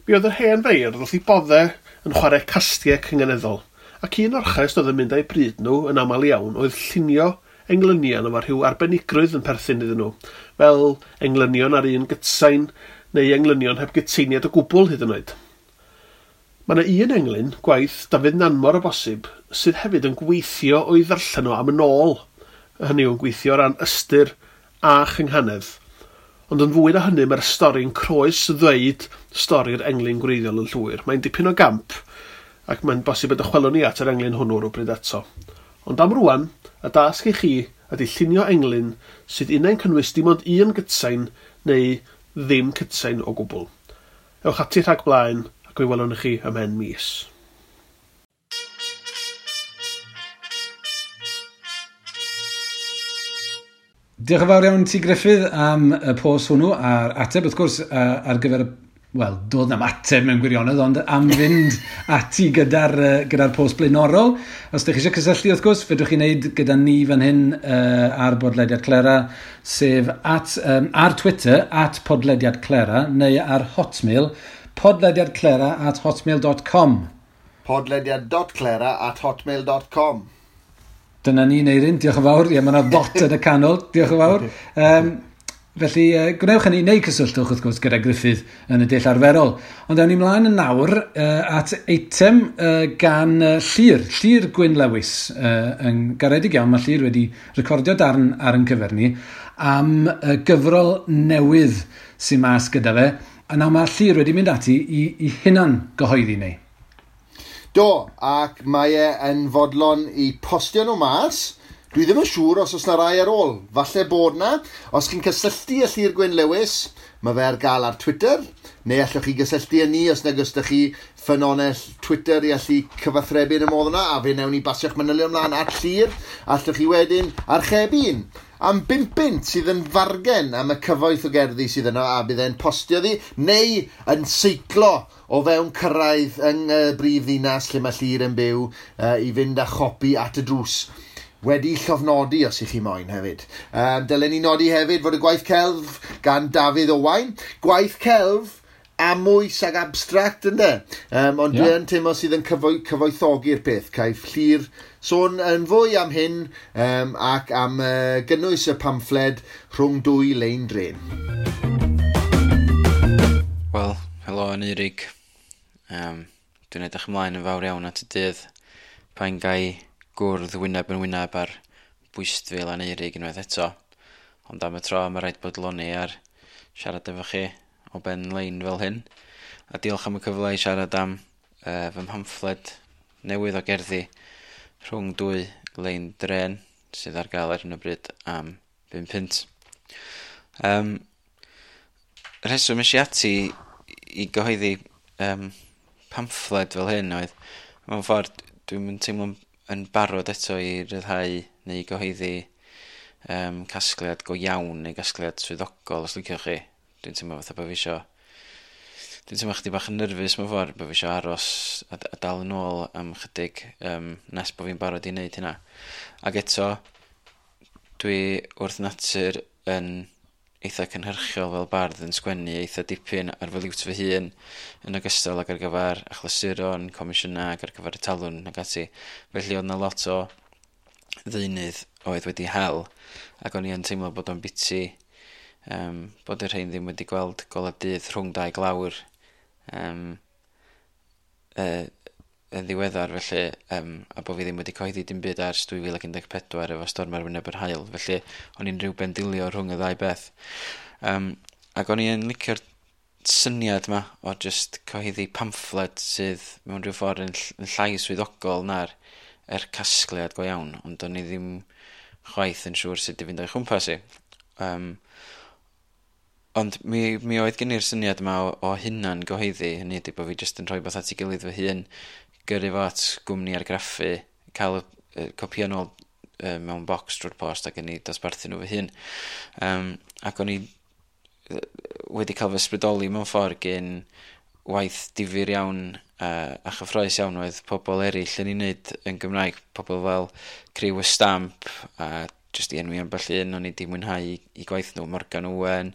Mi oedd yr hen feirdd wrth eu bodde yn chwarae castiau cynganeddol, ac un orchest oedd yn mynd â'u bryd nhw yn aml iawn oedd llunio englynion efo rhyw arbenigrwydd yn perthyn iddyn nhw, fel englynion ar un gytsain neu englynion heb gytseiniad o gwbl hyd yn oed. Mae yna un englyn, gwaith Dafydd Nanmor o bosib, sydd hefyd yn gweithio o'i ddarllen o am yn ôl, hynny yw'n gweithio o ran ystyr a chynghanedd. Ond yn fwy na hynny, mae'r stori'n croes ddweud stori'r englyn gwreiddiol yn llwyr. Mae'n dipyn o gamp, ac mae'n bosib y dychwelwn ni at yr englyn hwnnw rhywbryd eto. Ond am rwan, y dasg i chi ydy llunio englyn sydd unai'n cynnwys dim ond un gytsain neu ddim cytsain o gwbl. Ewch ati rhag blaen ac mi welwn ni chi ymhen mis. Diolch yn fawr iawn ti, Gruffydd, am y post hwnnw a'r ateb, wrth gwrs, ar gyfer y... Wel, doedd na'm ateb mewn gwirionedd, ond am fynd ati gyda'r gyda post blaenorol. Os ydych chi eisiau cysylltu, wrth gwrs, fedrwch chi wneud gyda ni fan hyn ar Bodlediad Clera, sef at, ar Twitter, @podlediadclera, neu ar Hotmail, podlediadclera@hotmail.com. podlediad.clera@hotmail.com. Dyna ni, Neirin, diolch yn fawr. Ie, mae yna ddot yn y canol, diolch yn fawr. Felly, gwnewch hynny neu cysylltwch, wrth gwrs, gyda Gruffydd yn y dull arferol. Ond awn ni mlaen yn nawr at eitem gan Llyr, Llyr Gwyn Lewis. Yn garedig iawn, mae Llyr wedi recordio darn ar ein cyfer ni am gyfrol newydd sy'n mas gyda fe. A nawr mae Llyr wedi mynd ati i hunan gyhoeddi ni. Do, ac mae e yn fodlon i postio nhw mas. Dwi ddim yn siŵr os oes na rai ar ôl. Falle bod na. Os chi'n cysylltu â Llyr Gwyn Lewis, mae fe ar gael ar Twitter, neu allwch chi gysylltu â ni os nag oes 'da chi ffynonell Twitter i allu cyfathrebu yn y modd yna, a fe wnawn ni basio'ch manylion ymlaen at Llyr. Allwch chi wedyn archebu un am 5 bunt sydd yn fargen am y cyfoeth o gerddi sydd yno, a bydd e'n postio ddi, neu yn seiclo o fewn cyrraedd yng brif ddinas lle mae Llyr yn byw i fynd â chopi at y drws. Wedi llofnodi os ych chi moyn hefyd. Dylen ni nodi hefyd fod y gwaith celf gan Dafydd Owain. Gwaith celf amwys ag abstract, ynde? Ond dwi yn teimlo sydd yn cyfoethogi'r peth. Caiff Llyr sôn yn fwy am hyn ac am gynnwys y pamffled rhwng dwy lein dren. Wel, helo Aneurig. Dwi'n edrych ymlaen yn fawr iawn at y dydd pan gai gwrdd wyneb yn wyneb ar bwystfil Aneurig unwaith eto. Ond am y tro mae rhaid bodloni ar siarad efo chi o ben lein fel hyn. A diolch am y cyfle i siarad am fy mhamffled newydd o gerddi rhwng dwy lein dren sydd ar gael ar hyn o bryd am 5 punt. Rheswm es i ati i gyhoeddi pamffled fel hyn oedd, mewn ffordd, dwi'm yn teimlo yn barod eto i ryddhau neu gyhoeddi casgliad go iawn neu gasgliad swyddogol, os liciwch chi. Dwi'n teimlo fatha bod fi isio... Dwi'n teimlo chydig bach yn nerfus mewn ffordd, bod fi isio aros a dal yn ôl am chydig nes bod fi'n barod i wneud hynna. Ac eto, dwi wrth natur yn eitha cynhyrchiol fel bardd, yn sgwennu eitha dipyn ar fy liwt fy hun yn ogystal ag ar gyfer achlysuron, comisiynau ac ar gyfer y talwrn ac ati. Felly oedd 'na lot o ddeunydd oedd wedi hel, ac o'n i yn teimlo bod o'n biti bod y rhain ddim wedi gweld golau dydd rhwng dau glawr yn ddiweddar felly, a bod fi ddim wedi cyhoeddi dim byd ers 2014 efo Storm ar Wyneb yr Haul, felly o'n i'n rhyw bendilio rhwng y ddau beth. Ac o'n i'n licio'r syniad yma o just cyhoeddi pamffled sydd mewn rhyw ffordd yn llai swyddogol na'r casgliad go iawn, ond o'n i ddim chwaith yn siŵr sut i fynd o'i chwmpas i. Ond mi oedd gen i'r syniad yma o hunan gyhoeddi, hynny ydy bod fi jyst yn rhoi beth at ei gilydd fy hun, gyrru fo at gwmni argraffu, cael y copïau nôl mewn bocs drwy'r post ac yn ei dosbarthu nhw fy hun. Ac o'n i wedi cael fy ysbrydoli mewn ffordd gen waith difyr iawn a chyffrous iawn oedd pobl eraill yn ei wneud yn Gymraeg, pobl fel Criw y Stamp a jyst i enwi ambell un o'n i 'di mwynhau i gwaith nhw, Morgan Owen,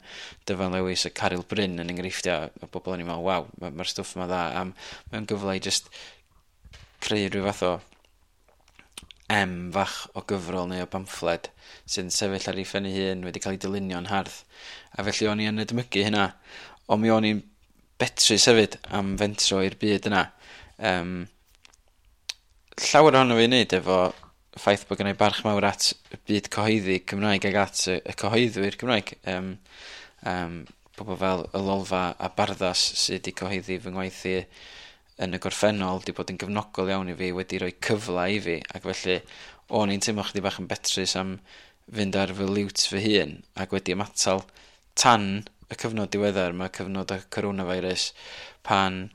Dyfan Lewis a Caryl Bryn yn enghreifftiau o bobl o'n i'n meddwl, waw, mae'r stwff yma dda, a mae'n gyfle i jyst creu rhyw fath o M fach o gyfrol neu o bamffled sy'n sefyll ar ei phen ei hun, wedi cael ei dylunio'n hardd. A felly o'n i yn edmygu hynna, ond mi o'n i'n betrus hefyd am fentro i'r byd yna. Llawer ohono fi i wneud efo ffaith bod gennai barch mawr at y byd cyhoeddi Cymraeg ac at y cyhoeddwyr Cymraeg. Pobl fel y Lolfa a Barddas sydd wedi cyhoeddi fy ngwaith i yn y gorffennol, wedi bod yn gefnogol iawn i fi, wedi rhoi cyfle i fi, ac felly o'n i'n teimlo chydig bach yn betrus am fynd ar fy liwt fy hun ac wedi ymatal tan y cyfnod diweddar, mae cyfnod y coronavirus, pan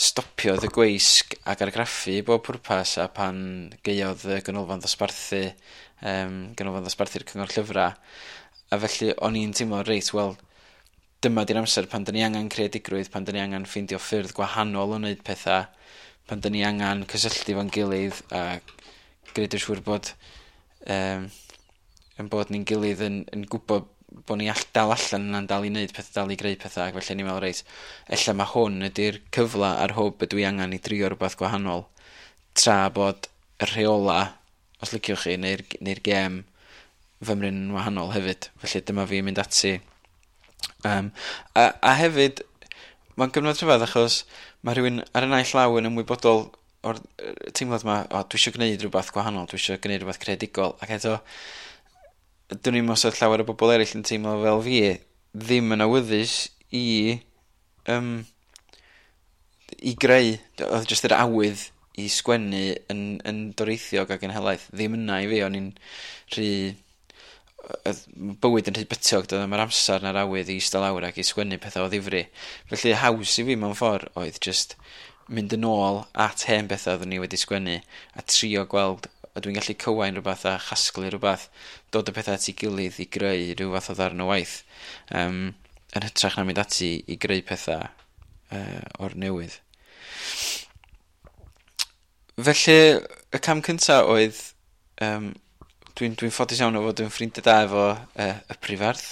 stopiodd y gweisg ac argraffu i bob pwrpas a pan gaeodd y ganolfan ddosbarthu, ganolfan ddosbarthu'r Cyngor Llyfrau, a felly o'n i'n teimlo, reit, wel, dyma di'r amser pan dyn ni angen creadigrwydd, pan dyn ni angen ffeindio ffyrdd gwahanol o wneud pethau, pan dyn ni angen cysylltu fo'n gilydd a gwneud yn siŵr bod yn bod ni'n gilydd yn gwybod bod ni dal allan yna'n dal i wneud pethau, dal i greu pethau, ac felly ni'n meddwl, reit, ella mae hwn ydy'r cyfle a'r hwb ydw i angen i drio rhywbeth gwahanol, tra bod y rheola, os liciwch chi, neu'r gêm fymryn yn wahanol hefyd. Felly dyma fi mynd ati. A hefyd, mae'n gyfnod rhyfedd achos mae rhywun ar y naill law yn ymwybodol o'r teimlad yma, o, dwi eisiau gwneud rhywbeth gwahanol, dwi eisiau gwneud rhywbeth creadigol, ac eto, dwn i'm os oedd llawer o bobl eraill yn teimlo fel fi, ddim yn awyddus i greu, oedd jyst yr awydd i sgwennu yn doreithiog ac yn helaeth, ddim yna i fi, o'n i'n rhy, oedd bywyd yn rhy bytiog, doedd ddim yr amser na'r awydd i eistedd lawr ac i sgwennu pethau o ddifri. Felly haws i fi mewn ffordd oedd jyst mynd yn ôl at hen bethau oeddwn i wedi sgwennu a trio gweld a dwi'n gallu cywain rhywbeth a chasglu rhywbeth, dod y pethau at ei gilydd i greu rhyw fath o ddarn o waith, yn hytrach na mynd ati i greu pethau o'r newydd. Felly, y cam cyntaf oedd, dwi'n ffodus iawn o fod yn ffrindiau da efo y prifardd,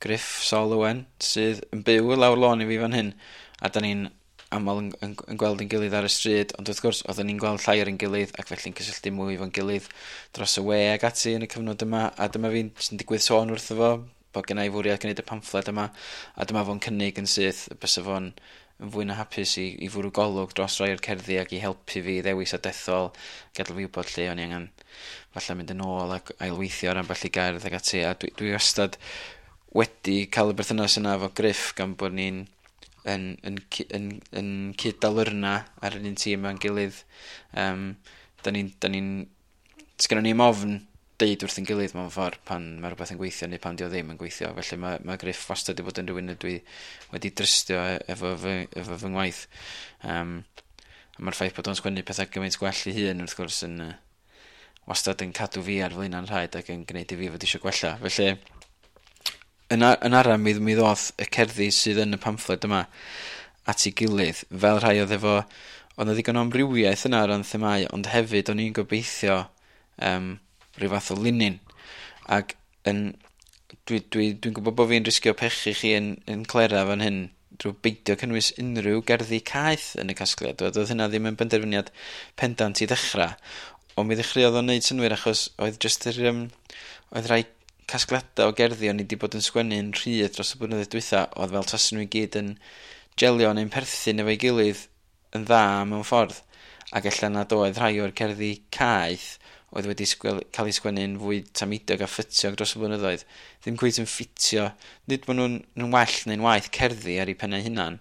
Gruff Sol Owen, sydd yn byw lawr lôn i fi fan hyn, a da ni'n aml yn gweld ein gilydd ar y stryd, ond wrth gwrs oedden ni'n gweld llai ar ein gilydd ac felly'n cysylltu mwy efo'n gilydd dros y we ac ati yn y cyfnod yma, a dyma fi'n jyst yn digwydd sôn wrtho fo bod genna i fwriad gwneud y pamffled yma, a dyma fo'n cynnig yn syth bysa fo'n yn fwy na hapus i fwrw golwg dros rai o'r cerddi ac i helpu fi ddewis a dethol, gadael fi wybod lle o'n i angen falle mynd yn ôl ac ailweithio ar ambell i gerdd ac ati, a dwi wastad wedi cael y berthynas yna efo Gruff gan bod ni'n yn cyd-dalyrna ar yr un tîm efo'n gilydd. Da ni'n, sgynnon ni'm ofn deud wrth ein gilydd mewn ffordd pan mae rhywbeth yn gweithio neu pan dio ddim yn gweithio. Felly mae Gruff wastad wedi bod yn rhywun ydw i wedi drystio efo fy ngwaith. A mae'r ffaith bod o'n sgwennu pethau gymaint gwell i hun wrth gwrs yn wastad yn cadw fi ar flaenau'n rhaid ac yn gwneud i fi fod eisiau gwella. Felly yn ara mi ddoth y cerddi sydd yn y pamffled yma at ei gilydd, fel rhai oedd efo, oedd 'na ddigon o amrywiaeth yna o ran themâu, ond hefyd o'n i'n gobeithio rhyw fath o linyn. Ac dwi'n gwybod bod fi'n risgio pechu chi yn clera fan hyn drwy beidio cynnwys unrhyw gerddi caeth yn y casgliad. Oedd hynna ddim yn benderfyniad pendant i ddechrau, ond mi ddechreuodd o'n neud synnwyr achos oedd jyst yr oedd rhai casgliadau o gerddi o'n i wedi bod yn sgwennu'n rhydd dros y blynyddoedd dwytha, oedd fel tasen nhw i gyd yn gelio neu'n perthyn efo'i gilydd yn dda mewn ffordd. Ac ella nad oedd rhai o'r cerddi caeth oedd wedi cael eu sgwennu'n fwy tameidiog a ffytiog dros y blynyddoedd, ddim cweit yn ffitio. Nid bod nhw'n well neu'n waeth cerddi ar eu pennau hunan,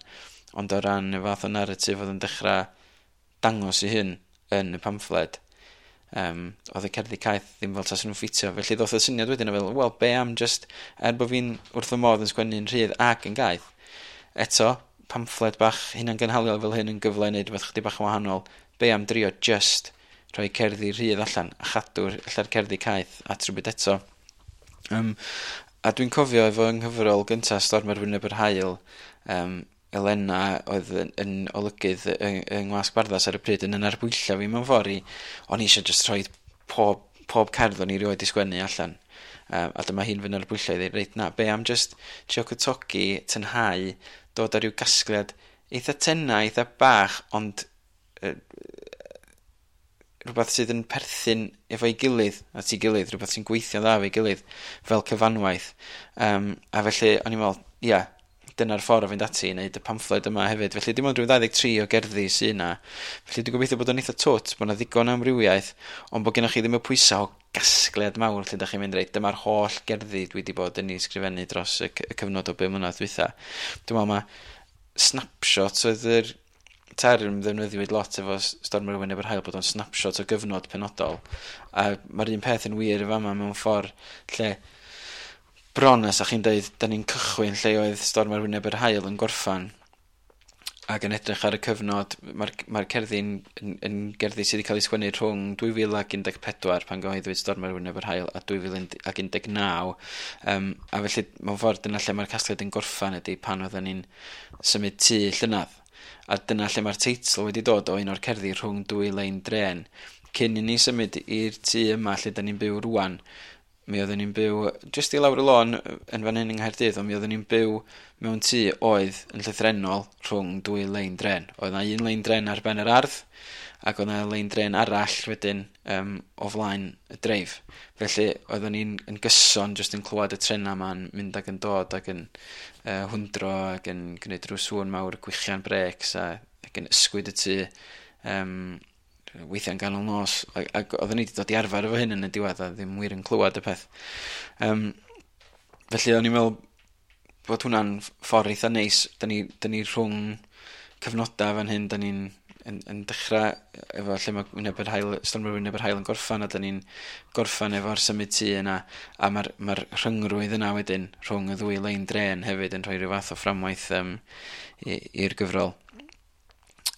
ond o ran y fath o narratif oedd yn dechrau dangos i hyn yn y pamffled, oedd y cerddi caeth ddim fel tasen nhw'n ffitio. Felly ddoth y syniad wedyn o fel, wel, be am just, er bod fi'n wrth fy modd yn sgwennu'n rhydd ac yn gaeth, eto, pamffled bach hunangynhaliol fel hyn yn gyfle i wneud rhywbeth chydig bach yn wahanol, be am drio just rhoi cerddi rhydd allan a chadw'r ella'r cerddi caeth at rhywbeth eto. A dwi'n cofio efo yng nghyfrol gyntaf Storm ar Wyneb yr Haul, Elena oedd yn olygydd yng Ngwasg Barddas ar y pryd yn arbwylla fi mewn ffordd i, o'n i eisiau just rhoi pob cerdd o'n i rioed i sgwennu allan. A dyma hi'n fy narbwyllo i ddweud, reit na, be am just trio cwtogi, tynhau, dod ar ryw gasgliad eitha tenau, eitha bach, ond rhywbeth sydd yn perthyn efo'i gilydd, at ei gilydd, rhywbeth sy'n gweithio'n dda efo'i gilydd, fel cyfanwaith. A felly, o'n i'n meddwl, ia, dyna'r ffordd o fynd ati i wneud y pamffled yma hefyd. Felly dim ond rhyw 23 o gerddi sydd yna. Felly dwi'n gobeithio bod o'n eitha twt, bod yna ddigon o amrywiaeth, ond bod gennych chi ddim y pwysau o gasgliad mawr lle ydych chi'n mynd reit, dyma'r holl gerddi dwi wedi bod yn ei sgrifennu dros y cyfnod o 5 mlynedd dwytha. Dwi'n meddwl mae snapshot oedd yr term ddefnyddiwyd lot efo Storm ar Wyneb yr Haul, bod o'n snapshot o gyfnod penodol. A mae'r un peth yn wir yn fama mewn ffordd lle bron as chi'n deud, da ni'n cychwyn lle oedd Storm ar Wyneb yr Haul yn gorffan ac yn edrych ar y cyfnod, mae'r cerddi'n yn gerddi sydd wedi cael ei sgwennu rhwng 2014 pan gyhoeddwyd Storm ar Wyneb yr Haul a 2019, a felly mewn ffordd dyna lle mae'r casgliad yn gorffan ydy pan oedden ni'n symud tŷ llynadd. A dyna lle mae'r teitl wedi dod o un o'r cerddi rhwng dwy lein dren. Cyn i ni symud i'r tŷ yma lle da ni'n byw rwan, mi oedden ni'n byw jyst i lawr y lôn yn fan hyn yng Nghaerdydd, ond mi oedden ni'n byw mewn tŷ oedd yn llythrennol rhwng dwy lein dren. Oedd 'na un lein dren ar ben yr ardd, ac oedd 'na lein dren arall wedyn o flaen y dreif. Felly oedden ni'n yn gyson jyst yn clywed y trenau yma'n mynd ac yn dod ac yn hwndro ac yn gwneud rhyw sŵn mawr, gwichian brêcs ac yn ysgwyd y tŷ weithiau'n ganol nos, ac oedden ni wedi dod i arfer efo hyn yn y diwedd a ddim wir yn clywed y peth. Felly o'n i'n meddwl bod hwnna'n ffordd eitha neis. Da ni rhwng cyfnodau fan hyn, da ni'n yn dechrau efo lle mae Wyneb yr Haul, Storm ar Wyneb yr Haul yn gorffan, a da ni'n gorffan efo'r symud tŷ yna, a mae'r rhyngrwyd yna wedyn rhwng y ddwy lein dren hefyd yn rhoi rhyw fath o fframwaith i'r gyfrol.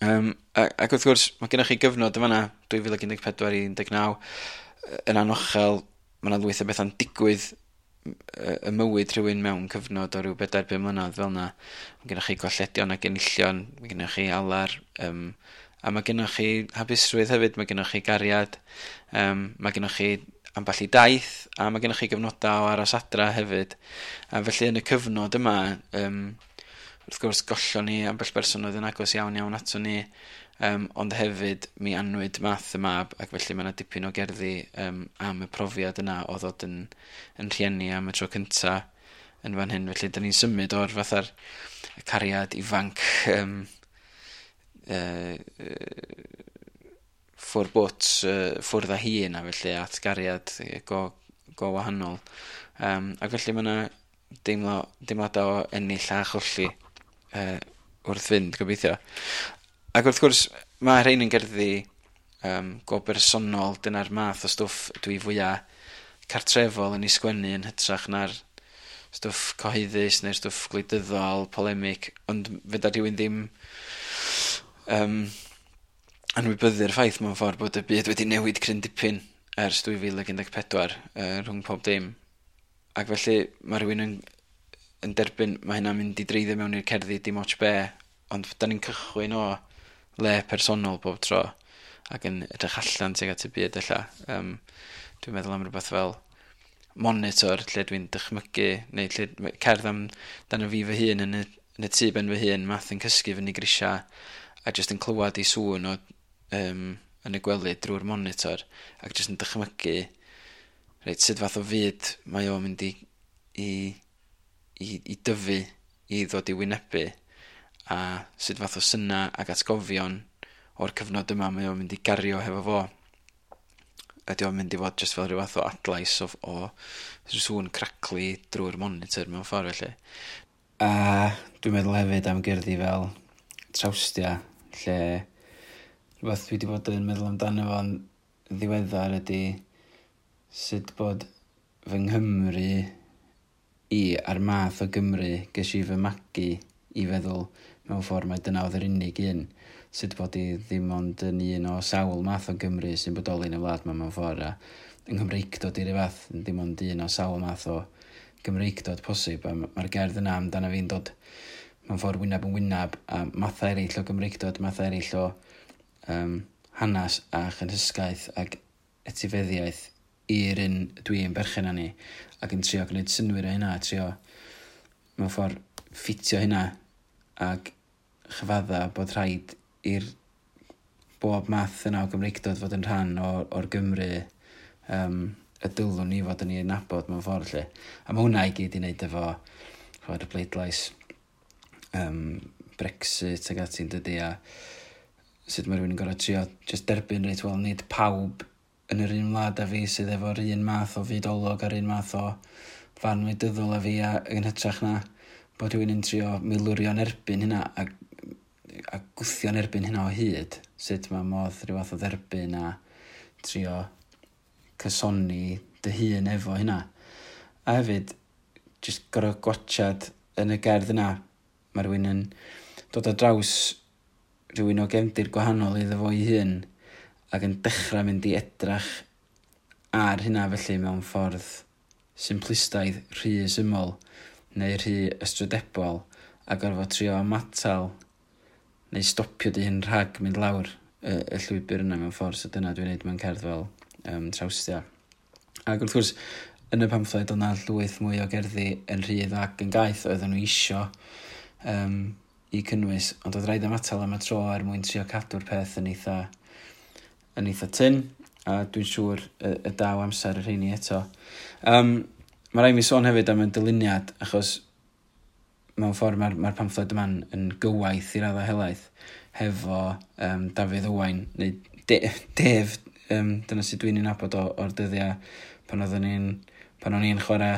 Ac wrth gwrs, mae gennych chi gyfnod yn fanna, 2014 i 19, yn anochel, mae yna lwyth o bethau'n digwydd y mywyd rhywun mewn cyfnod o ryw 4-5 mlynedd fel yna. Mae gennych chi golledion ac enillion, mae gennych chi alar, a mae gennych chi hapusrwydd hefyd, mae gennych chi gariad, mae gennych chi ambell i daith, a mae gennych chi gyfnodau o aros adra hefyd. A felly yn y cyfnod yma, wrth gwrs gollon ni ambell berson oedd yn agos iawn iawn ato ni, ond hefyd mi anwyd Math y mab, ac felly mae yna dipyn o gerddi am y profiad yna o ddod yn rhieni am y tro cynta yn fan hyn. Felly da ni'n symud o'r fatha'r cariad ifanc ffwr bwt, ffwrdd â hi yna, felly at gariad go wahanol. Ac felly mae yna deimladau o ennill a cholli wrth fynd, gobeithio. Ac wrth gwrs, mae rhain yn gerddi go bersonol, dyna'r math o stwff dwi fwyaf cartrefol yn ei sgwennu yn hytrach na'r stwff cyhoeddus neu'r stwff gwleidyddol, polemic, ond fedra rhywun ddim anwybyddu'r ffaith mewn ffordd bod y byd wedi newid cryn dipyn ers 2014 rhwng pob dim. Ac felly mae rhywun yn derbyn, mae hynna'n mynd i dreiddio mewn i'r cerddi dim ots be, ond da ni'n cychwyn o le personol bob tro ac yn edrych allan tuag at y byd ella. Dwi'n meddwl am rhywbeth fel monitor lle dwi'n dychmygu, neu lle cerdd am dan y fi fy hun yn y tŷ ben fy hun, Math yn cysgu fyny grisiau a jyst yn clywed ei sŵn o yn y gwely drwy'r monitor ac jyst yn dychmygu reit sut fath o fyd mae o'n mynd i dyfu, i ddod i wynebu, a sut fath o syna ac atgofion o'r cyfnod yma mae o'n mynd i gario hefo fo. Ydy o'n mynd i fod jyst fel rhyw fath o adlais o sŵn craclu drwy'r monitor mewn ffordd felly. A dwi'n meddwl hefyd am gerddi fel Trawstia, lle rhywbeth dwi wedi bod yn meddwl amdano fo'n ddiweddar ydy sut bod fy Nghymru i a'r math o Gymru ges i fy magu i feddwl mewn ffordd mai dyna oedd yr unig un. Sut bod i ddim ond yn un o sawl math o Gymru sy'n bodoli yn y wlad 'ma mewn ffordd, a yng Nghymreictod i ryw fath, ddim ond un o sawl math o Gymreictod posib, a mae'r gerdd yna amdano fi'n dod mewn ffordd wyneb yn wyneb a mathau eraill o Gymreictod, mathau eraill o hanes a chynhysgaeth ac etifeddiaeth i'r un dwi'n berchen arni, ac yn trio gwneud synnwyr o hynna, a trio mewn ffordd ffitio hynna ac chyfadda bod rhaid i'r bob math yna o Gymreictod fod yn rhan o'r Gymru y dylwn ni fod yn ei nabod mewn ffordd lle. A mae hwnna i gyd i wneud efo ch'mod, y bleidlais Brexit ac ati'n dydy, a sut mae rhywun yn gorfod trio just derbyn reit, wel, nid pawb yn yr un wlad â fi sydd efo'r un math o fydolwg a'r un math o farn wleidyddol â fi, a yn hytrach na bod rhywun yn trio milwrio'n erbyn hynna a gwthio'n erbyn hynna o hyd, sut mae modd rhyw fath o dderbyn a trio cysoni dy hun efo hynna. A hefyd, jyst gorfod gwatsiad yn y gerdd yna, mae rhywun yn dod ar draws rhywun o gefndir gwahanol iddo fo ei hun ac yn dechrau mynd i edrach ar hynna felly mewn ffordd simplistaidd, rhy syml neu rhy ystrydebol, a gorfod trio ymatal neu stopio dy hun rhag mynd lawr y llwybr yna mewn ffordd. So dyna dwi'n neud mewn cerdd fel Trawstia. Ac wrth gwrs, yn y pamffled oedd 'na llwyth mwy o gerddi yn rhydd ac yn gaeth oedden nhw isio i cynnwys, ond oedd rhaid ymatal am y tro er mwyn trio cadw'r peth yn eitha tyn, a dwi'n siŵr y daw amser y rheini eto. Mae rhaid mi sôn hefyd am y dyluniad, achos mewn ffordd mae'r pamffled yma'n yn gywaith i raddau helaeth hefo Dafydd Owain, neu Dave, dyna sydd dwi'n ei nabod o'r dyddiau pan o'n i'n chwarae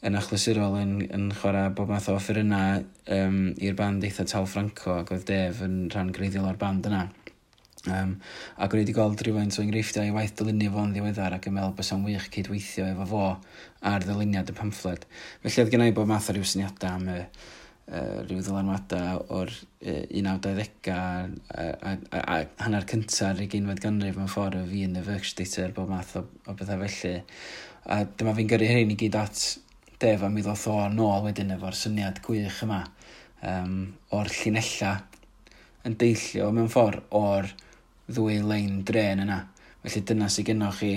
yn achlysurol yn chwarae bob math o offerynnau i'r band eitha Tal Franco, ac oedd Dave yn rhan greiddiol o'r band yna. Ac o'n i wedi gweld rhywfaint o enghreifftiau i waith dylunio fo'n ddiweddar ac yn meddwl bysa'n wych cydweithio efo fo ar ddyluniad y pamffled. Felly oedd gen i bob math o ryw syniadau am y rhyw ddylanwadau o'r 1920au a hanner cynta'r 20fed ganrif mewn ffordd o fi yn y Werkstätte, bob math o bethau felly. A dyma fi'n gyrru hyn i gyd at Dave a mi ddoth o nôl wedyn efo'r syniad gwych yma o'r llinella yn deillio mewn ffordd o'r ddwy lein dren yna. Felly dyna sydd gennoch chi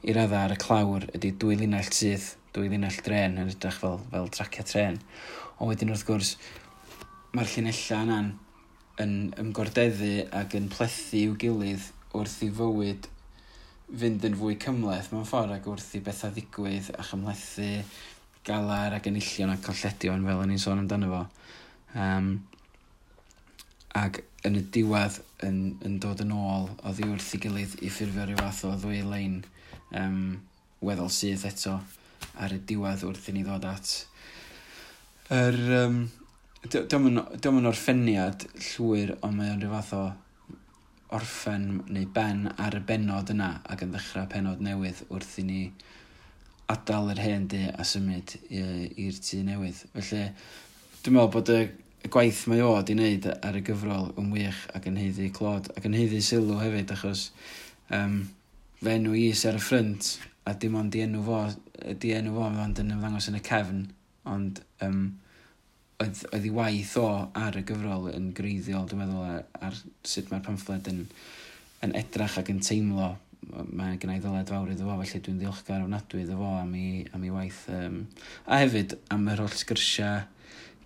i raddau ar y clawr ydy dwy linell syth, dwy linell dren yn edrych fel tracia tren. Ond wedyn wrth gwrs, mae'r llinellau yna'n yn ymgordeddu ac yn plethu i'w gilydd wrth i fywyd fynd yn fwy cymhleth mewn ffordd ac wrth i bethau ddigwydd a chymhlethu galar ac enillion a colledion fel o'n i'n sôn amdano fo. Ac yn y diwedd yn dod yn ôl oddi wrth ei gilydd i ffurfio rhyw fath o ddwy lein weddol syth eto ar y diwedd wrth i ni ddod at yr... Dio'm yn orffeniad llwyr, ond mae o'n rhyw fath o orffen neu ben ar y benod yna ac yn ddechrau penod newydd wrth i ni adael yr hen dŷ a symud i'r tŷ newydd. Felly, dwi'n meddwl bod y gwaith mae o di wneud ar y gyfrol yn wych ac yn haeddu clod ac yn haeddu sylw hefyd, achos fe enw i sy ar y ffrynt a dim ond di enw fo ond yn ymddangos yn y cefn, ond oedd ei waith o ar y gyfrol yn greiddiol, dwi'n meddwl, ar sut mae'r pamffled yn edrach ac yn teimlo. Mae gen i ddyled fawr iddo fo, felly dwi'n ddiolchgar ofnadwy iddo fo am ei waith. A hefyd am yr holl sgyrsiau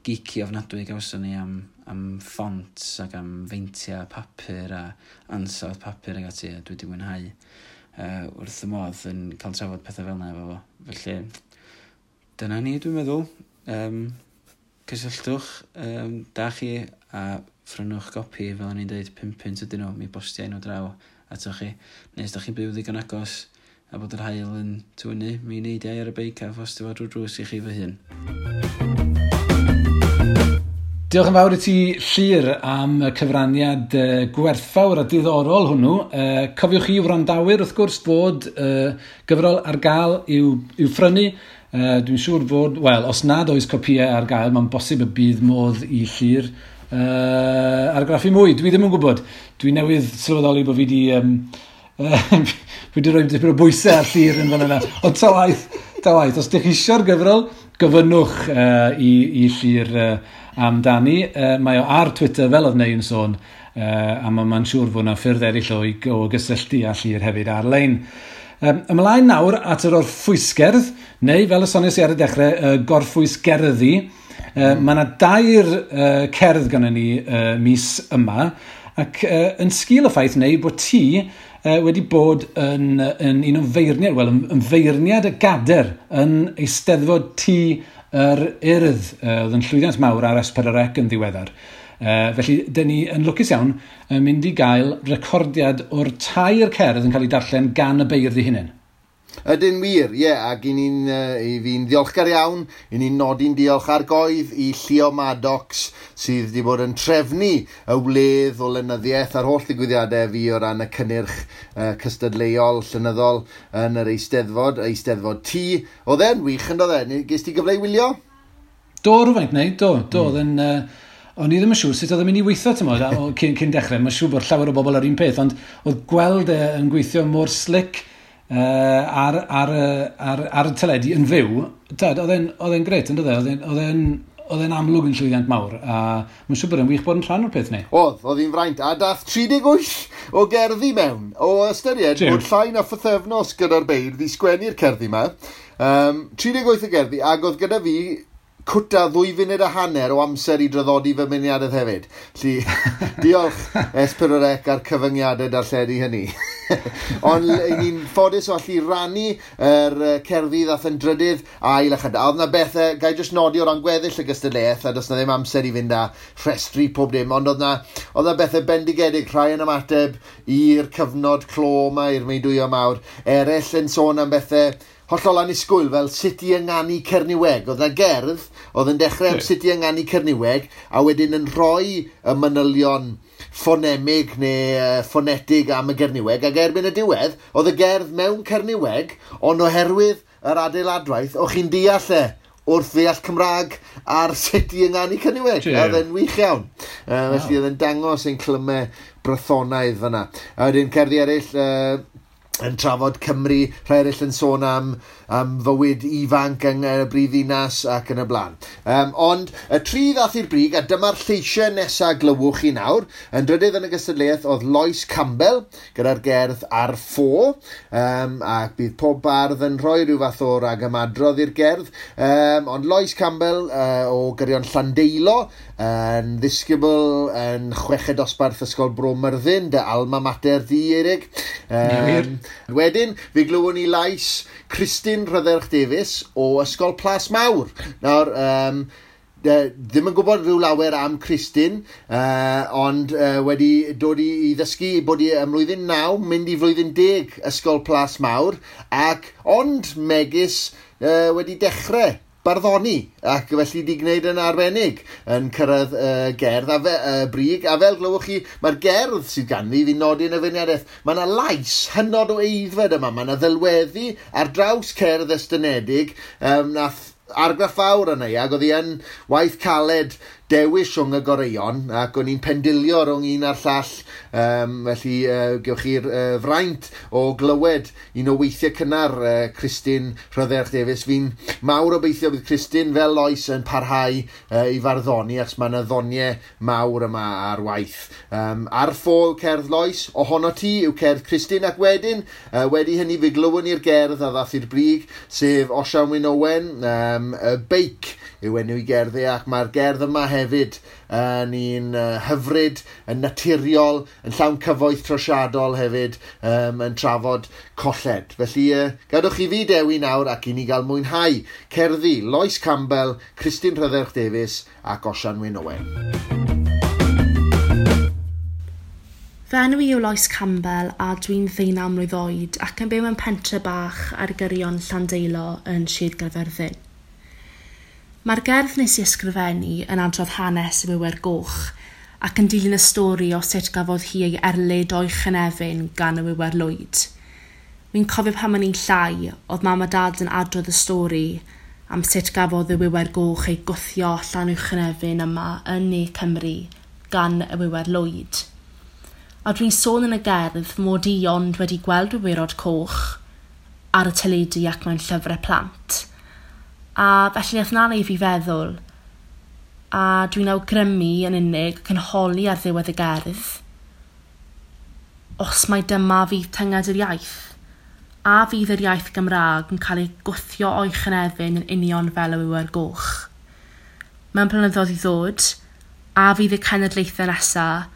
geeky ofnadwy gawson ni am fonts ac am feintiau papur a ansawdd papur ac ati, a dwi wedi mwynhau wrth y modd yn cael trafod pethau fel yna efo fo. Felly, dyna ni, dwi'n meddwl. Cysylltwch, da chi, a phrynwch gopi, fel o'n i'n dweud, 5 punt ydyn nhw, mi bostiau nhw draw atoch chi. Neu os da chi'n byw ddigon agos a bod yr haul yn tywynnu, mi neidiau ar y beic a phostio fo drwy drws i chi fy hun. Diolch yn fawr i ti, Llyr, am y cyfraniad gwerthfawr a diddorol hwnnw. Cofiwch chi wrandawyr, wrth gwrs, fod gyfrol ar gael i'w phrynu. Dwi'n siŵr fod, wel, os nad oes copïau ar gael, mae'n bosib y bydd modd i Llyr argraffu mwy. Dwi ddim yn gwybod. Dwi newydd sylweddoli bod fi wedi fi wedi rhoi dipyn o bwysau ar Llyr yn fan yna. Ond ta waeth, os ydych chi eisiau'r gyfrol, gofynnwch i Llyr amdani. Mae o ar Twitter, fel oedd Neu yn sôn, a mae'n siŵr fod yna ffyrdd eraill o gysylltu â Llyr hefyd ar-lein. Ymlaen nawr at yr orffwysgerdd, neu fel y soniais i ar y dechrau, gorffwysgerddi. Mae yna dair cerdd gynnon ni mis yma, ac yn sgil y ffaith neu bod ti wedi bod yn un o feirniad, wel, yn feirniad y gader yn Eisteddfod Tŷ yr Urdd, oedd yn llwyddiant mawr ar S4C yn ddiweddar. Felly, dyn ni yn lwcus iawn yn mynd i gael recordiad o'r tair cerdd yn cael ei darllen gan y beirdd eu hunain. Ydyn wir, ie, ac i fi'n ddiolchgar iawn, i ni'n nodi'n diolch ar goedd i Llio Maddox sydd wedi bod yn trefnu y wledd o lenyddiaeth a'r holl ddigwyddiadau fi o ran y cynnyrch cystadleuol llenyddol yn yr Eisteddfod, Eisteddfod Tŷ. Oedd e'n wych yn doedd e? Ges ti gyfle i wylio? Do, rhywfaint, neu, do, oedd yn... O'n i ddim yn siŵr sut oedd yn mynd i weithio, ti'n cyn dechrau. Mae'n siŵr bod llawer o bobl ar un peth, ond oedd gweld e yn gweithio mor slick ar y teledu yn fyw, oedd e'n grêt, yn doedd e? Oedd e'n amlwg yn llwyddiant mawr, a mae'n siŵr bod e'n wych bod yn rhan o'r peth ni. Oedd hi'n fraint, a dath 38 o gerddi mewn, o ystyried bod llai na phythefnos gyda'r beirdd i sgwennu'r cerddi yma. 38 o gerddi, ac oedd gyda fi cwta 2.5 munud o amser i draddodi fy myniadedd hefyd. Felly, diolch S4C a'r cyfyngiadau darlledu hynny. Ond ni'n ffodus o allu rannu yr cerddi ddath yn drydydd ail a chyda. Oedd na bethau, gai jyst nodi o ran gweddill y gystadleuaeth, a does na ddim amser i fynd â rhestru pob dim, ond oedd na bethau bendigedig, rhai yn ymateb i'r cyfnod clo yma, i'r meudwyo mawr, eraill yn sôn am bethau hollol annisgwyl, fel sut i ynganu Cerniweg. Oedd na gerdd oedd yn dechrau am sut i ynganu Cerniweg, a wedyn yn rhoi y manylion ffonemig neu ffonetig am y Gerniweg, ac erbyn y diwedd, oedd y gerdd mewn Cerniweg, ond oherwydd yr adeiladwaith, o'ch chi'n deall e wrth ddeall Cymraeg ar sut i ynganu Cerniweg. Oedd e'n wych iawn. Felly oedd e'n dangos ein clymau brythonaidd fyna. A wedyn cerddi eraill, yn trafod Cymru, rhai eraill yn sôn am fywyd ifanc yng y brifddinas ac yn y blaen. Ond y tri ddath i'r brig, a dyma'r lleisiau nesaf glywch chi nawr, yn drydydd yn y gystadleuaeth oedd Lois Campbell gyda'r gerdd Ar Ffo, ac bydd pob bardd yn rhoi rhyw fath o ragymadrodd i'r gerdd, ond Lois Campbell o Gyrion Llandeilo, yn ddisgybl yn chweched dosbarth Ysgol Bro Myrddin, dy alma mater di, Eirig. Wedyn, fe glywon ni lais Christine Rhydderch Davies o Ysgol Plas Mawr. Nawr, ddim yn gwybod rhyw lawer am Christine, ond wedi dod i ddysgu bod i ym mlwyddyn 9, mynd i flwyddyn 10 Ysgol Plas Mawr, ac ond megis wedi dechrau barddoni, ac felly di gwneud yn arbennig yn cyrraedd gerdd a brig, a fel glywch chi, mae'r gerdd sydd ganddi fi'n nodi yn y feirniadaeth, mae yna lais hynod o eiddfed yma, mae yna ddelweddu ar draws cerdd estynedig, nath argraff fawr yna i, ac oedd hi yn waith caled dewis rhwng y goreuon, ac o'n i'n pendilio rhwng un a'r llall, felly gewch chi'r fraint o glywed un o weithiau cynnar Christine Rhydderch Davies. Fi'n mawr obeithio bydd Christine fel Lois yn parhau i farddoni, achos mae yna ddoniau mawr yma ar waith. Ar ffo yw cerdd Lois, ohono ti yw cerdd Christine, ac wedyn, wedi hynny fe glywon ni'r gerdd a ddath i'r brig, sef Osian Wyn Owen, y beic yw enw i gerddi, ac mae'r gerdd yma hefyd yn un hyfryd, yn naturiol, yn llawn cyfoeth trosiadol hefyd, yn trafod colled. Felly, gadwch i fi dewi nawr ac i ni gael mwynhau cerddi Lois Campbell, Christine Rhydderch Davies ac Osian Wyn Owen. Fy enw i yw Lois Campbell a dwi'n 19 mlwydd oed ac yn byw mewn pentre bach ar gyrion Llandeilo yn Sir Gaerfyrddin. Mae'r gerdd nes i ysgrifennu yn adrodd hanes y Wiwer Goch ac yn dilyn y stori o sut gafodd hi ei erlid o'i chynefin gan y Wiwer Lwyd. Wi'n cofio pan o'n i'n llai, oedd mam a dad yn adrodd y stori am sut gafodd y Wiwer Goch ei gwthio allan o'i chynefin yma yn Ne Cymru gan y Wiwer Lwyd. A dwi'n sôn yn y gerdd mod i ond wedi gweld wywyrod coch ar y teledu ac mewn llyfrau plant. A felly nath 'na wneud fi feddwl, a dwi'n awgrymu yn unig ac yn holi ar ddiwedd y gerdd, os mai dyma fydd tynged yr iaith, a fydd yr iaith Gymraeg yn cael ei gwthio o'i chynefin yn union fel y wiwer goch. Mewn blynyddoedd i ddod, a fydd y cenedlaethau nesaf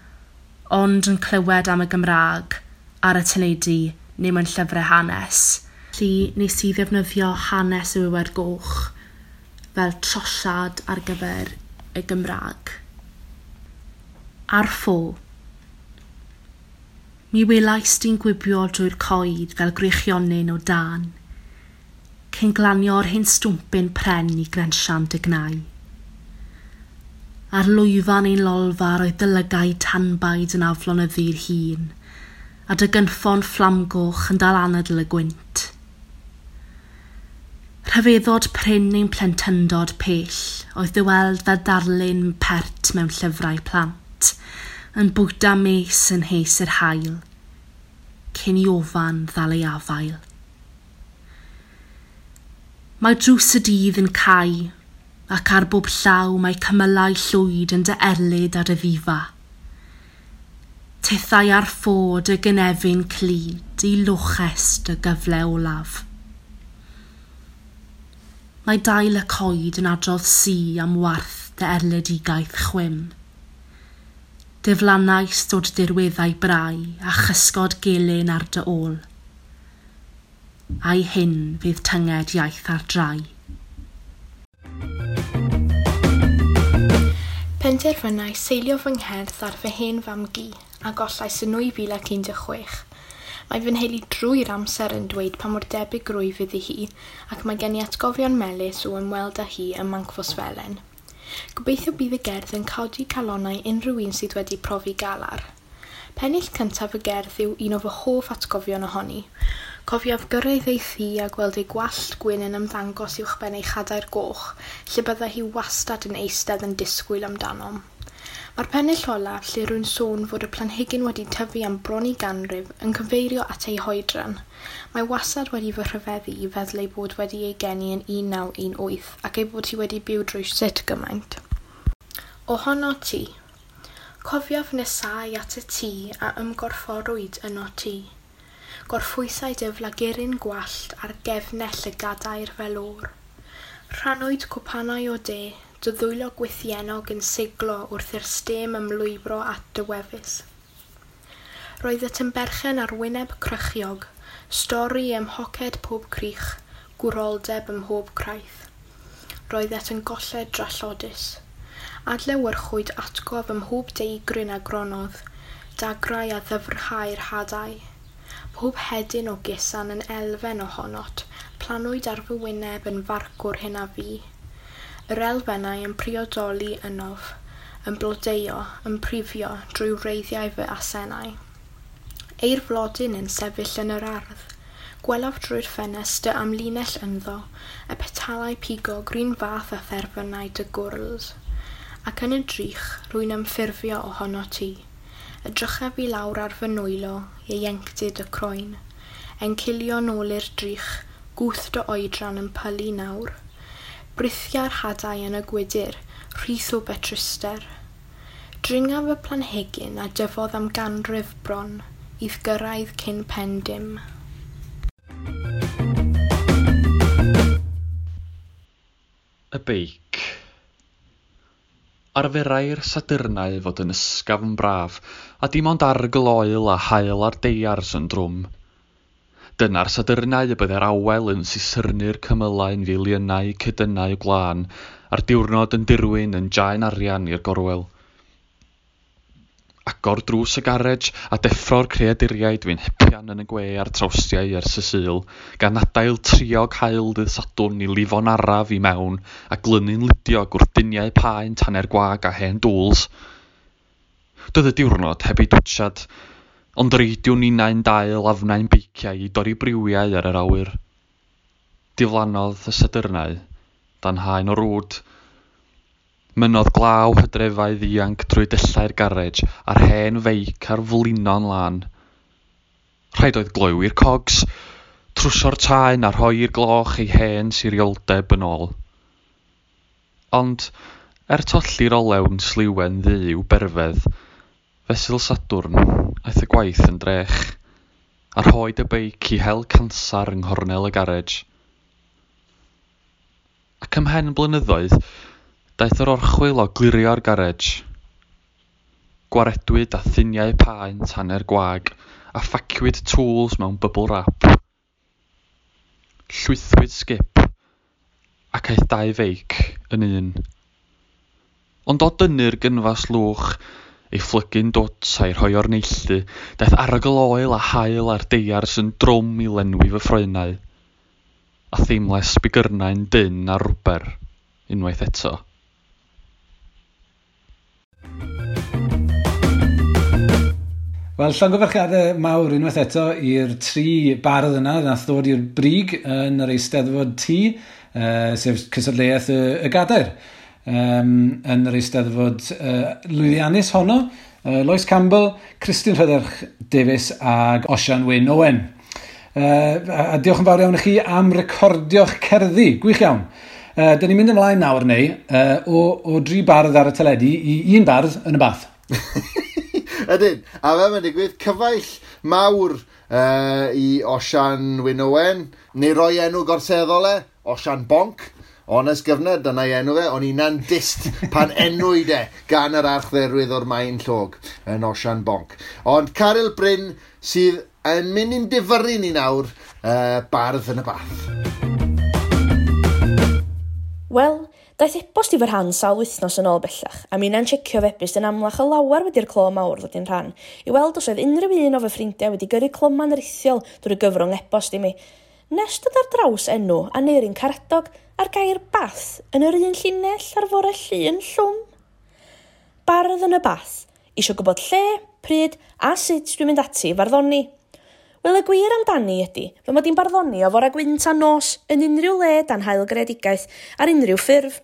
ond yn clywed am y Gymraeg ar y teledu neu mewn llyfrau hanes. Felly nes i ddefnyddio hanes y Wiwer Goch fel trosiad ar gyfer y Gymraeg. Ar ffo. Mi welais di'n gwibio drwy'r coed fel gwreichionyn o dân, cyn glanio'r hen stwmpyn pren i grensian dy gnau. Ar lwyfan ein lolfa roedd dy lygaid tanbaid yn aflonyddu'r hun, a dy gynffon fflamgoch yn dal anadl y gwynt. Rhyfeddod prin ein plentyndod pell oedd dy weld fel darlun pert mewn llyfrau plant, yn bwyta mes yn hes yr haul, cyn i ofan ddal ei afael. Mae drws y dydd yn cau, ac ar bob llaw mae cymylau llwyd yn dy erlid a dy ddifa. Tithau ar ffo dy gynefin clyd i loches dy gyfle olaf. Mae dail y coed yn adrodd si am warth dy erledigaeth chwim. Diflannais dod dirweddau brau a chysgod gelyn ar dy ôl. A'i hyn fydd tynged iaith ar drai. Penderfynais seilio fy ngherdd ar fy hen fam-gu a gollais yn 2016. Mae fy nheulu drwy'r amser yn dweud pa mor debyg rwyf iddi hi ac mae gen i atgofion melys o ymweld â hi ym Mancfosfelen. Gobeithio bydd y gerdd yn codi calonnau unrhyw un sydd wedi profi galar. Pennill cyntaf y gerdd yw un o fy hoff atgofion ohoni. Cofiaf gyrraedd ei thŷ a gweld ei gwallt gwyn yn ymddangos uwchben ei chadair goch, lle byddai hi wastad yn eistedd yn disgwyl amdanom. Mae'r pennill olaf, lle rwy'n sôn fod y planhigyn wedi tyfu am bron i ganrif, yn cyfeirio at ei hoedran. Mae wastad wedi fy rhyfeddu i feddwl ei bod wedi ei geni yn 1918 ac ei bod hi wedi byw drwy sut gymaint. Ohono ti. Cofiaf nesau at y tŷ a ymgorfforwyd yno ti. Gorffwysai dy flaguryn gwallt ar gefnell y gadair fel o'r. Rhannwyd cwpanau o de, dy ddwylo gwythiennog yn siglo wrth i'r stêm ymlwybro at dy wefus. Roedd y berchen ar wyneb crychiog, stori ym mhoced pob crych, gwroldeb ym mhob craith. Roeddet yn golled drallodus. Adlewyrchwyd atgof ym mhob deigryn a gronodd, dagrau a ddyfrhau'r hadau. Pob hedyn o gusan yn elfen ohonot, planwyd ar fy wyneb yn farcwr hyn a fi. Yr elfennau yn priodoli ynof, yn blodeuo, yn prifio drwy wreiddiau fy asennau. Eir flodyn yn sefyll yn yr ardd. Gwelaf drwy'r ffenest dy amlinell ynddo, y petalau pigog run fath a therfynau dy gwrls. Ac yn y drych, rwy'n ymffurfio ohono ti. Edrychaf i lawr ar fy nwylo, ieuenctid y croen. Encilio nôl i'r drych, gwth dy oedran yn pylu nawr. Brithia'r hadau yn y gwydyr, rhith o betruster. Dringaf y planhigyn a dyfodd am ganrif bron, i'th gyrraedd cyn pen dim. Y beic. Arferai'r Sadyrnau fod yn ysgafn braf, a dim ond arogl oel a haul ar deiars yn drwm. Dyna'r Sadyrnau y byddai'r awel yn sisyrnu'r cymylau'n filiynau cedynnau gwlân, a'r diwrnod yn dirwyn yn jaen arian i'r gorwel. Agor drws y garej a deffro'r creaduriaid fu'n hepian yn y gwe a'r trawstiau ers y Sul, gan adael triog haul ddydd Sadwrn i lifo'n araf i mewn a glynu'n ludiog wrth duniau paent hanner gwag a hen dŵls. Doedd y diwrnod heb ei dwtsiad, ond reidiwn ninnau'n dail afnau'n beiciau i dorri briwiau ar yr awyr. Diflannodd y Sadyrnau dan haen o rwd. Mynnodd glaw hydrefau ddianc drwy dyllau'r garej a'r hen feic ar flino'n lân. Rhaid oedd gloywi'r cogs, trwsio'r taen a rhoi i'r gloch ei hen sirioldeb yn ôl. Ond, er tolli'r olew'n sliwen ddu i'w berfedd, fesul Sadwrn aeth y gwaith yn drech, a rhoed y beic i hel cansar yng nghornel y garej. Ac ymhen blynyddoedd, daeth yr orchwyl o glirio'r garej. Gwaredwyd â thuniau paent hanner gwag a phaciwyd tools mewn bubble wrap. Llwythwyd sgip ac aeth dau feic yn un. Ond o dynnu'r gynfas lwch, ei phlygu'n dwt a'i rhoi o'r neilltu, daeth arogl oel a haul ar deiars yn drwm i lenwi fy ffroenau, a theimlais bigyrnau'n dynn ar rwber unwaith eto. Wel, llongyfarchiadau mawr unwaith eto i'r tri bardd yna nath ddod i'r brig yn yr Eisteddfod T, sef cystadleuaeth y gadair, yn yr Eisteddfod lwyddiannus honno. Lois Campbell, Christine Rhydderch Davies ag Osian Wyn Owen. A diolch yn fawr iawn i chi am recordio'ch cerddi. Gwych iawn. Dyn ni'n mynd ymlaen nawr neu o dri bardd ar y teledu i un bardd yn y bath. Ydyn, a fel mae'n digwydd, cyfaill mawr i Osian Wyn Owen, neu roi enw gorseddol e, Osian Bonc, honest gyfnod, dyna'i enw fe, o'n i'n dist pan enwyd e gan yr archdderwydd o'r Maen Llog yn Osian Bonc. Ond Caryl Bryn sydd yn mynd i'n difyrru ni nawr, bardd yn y bath. Wel, daeth e-bost i fy rhan sawl wythnos yn ôl bellach, a minnau'n checio fy e-byst yn amlach o lawer wedi'r clo mawr ddod i'n rhan, i weld os oedd unrhyw un o fy ffrindiau wedi gyrru cloman rithiol drwy gyfrwng e-bost i mi. Nes dod ar draws enw Aneirin Karadog a'r gair bath yn yr un llinell ar fore Llun llwm. Bardd yn y bath, isio gwybod lle, pryd a sut dwi'n mynd ati i farddoni. Wel, y gwir amdani ydy, fy mod i'n barddoni o fore gwynt a nos yn unrhyw le dan haul greadigaeth ar unrhyw ffurf.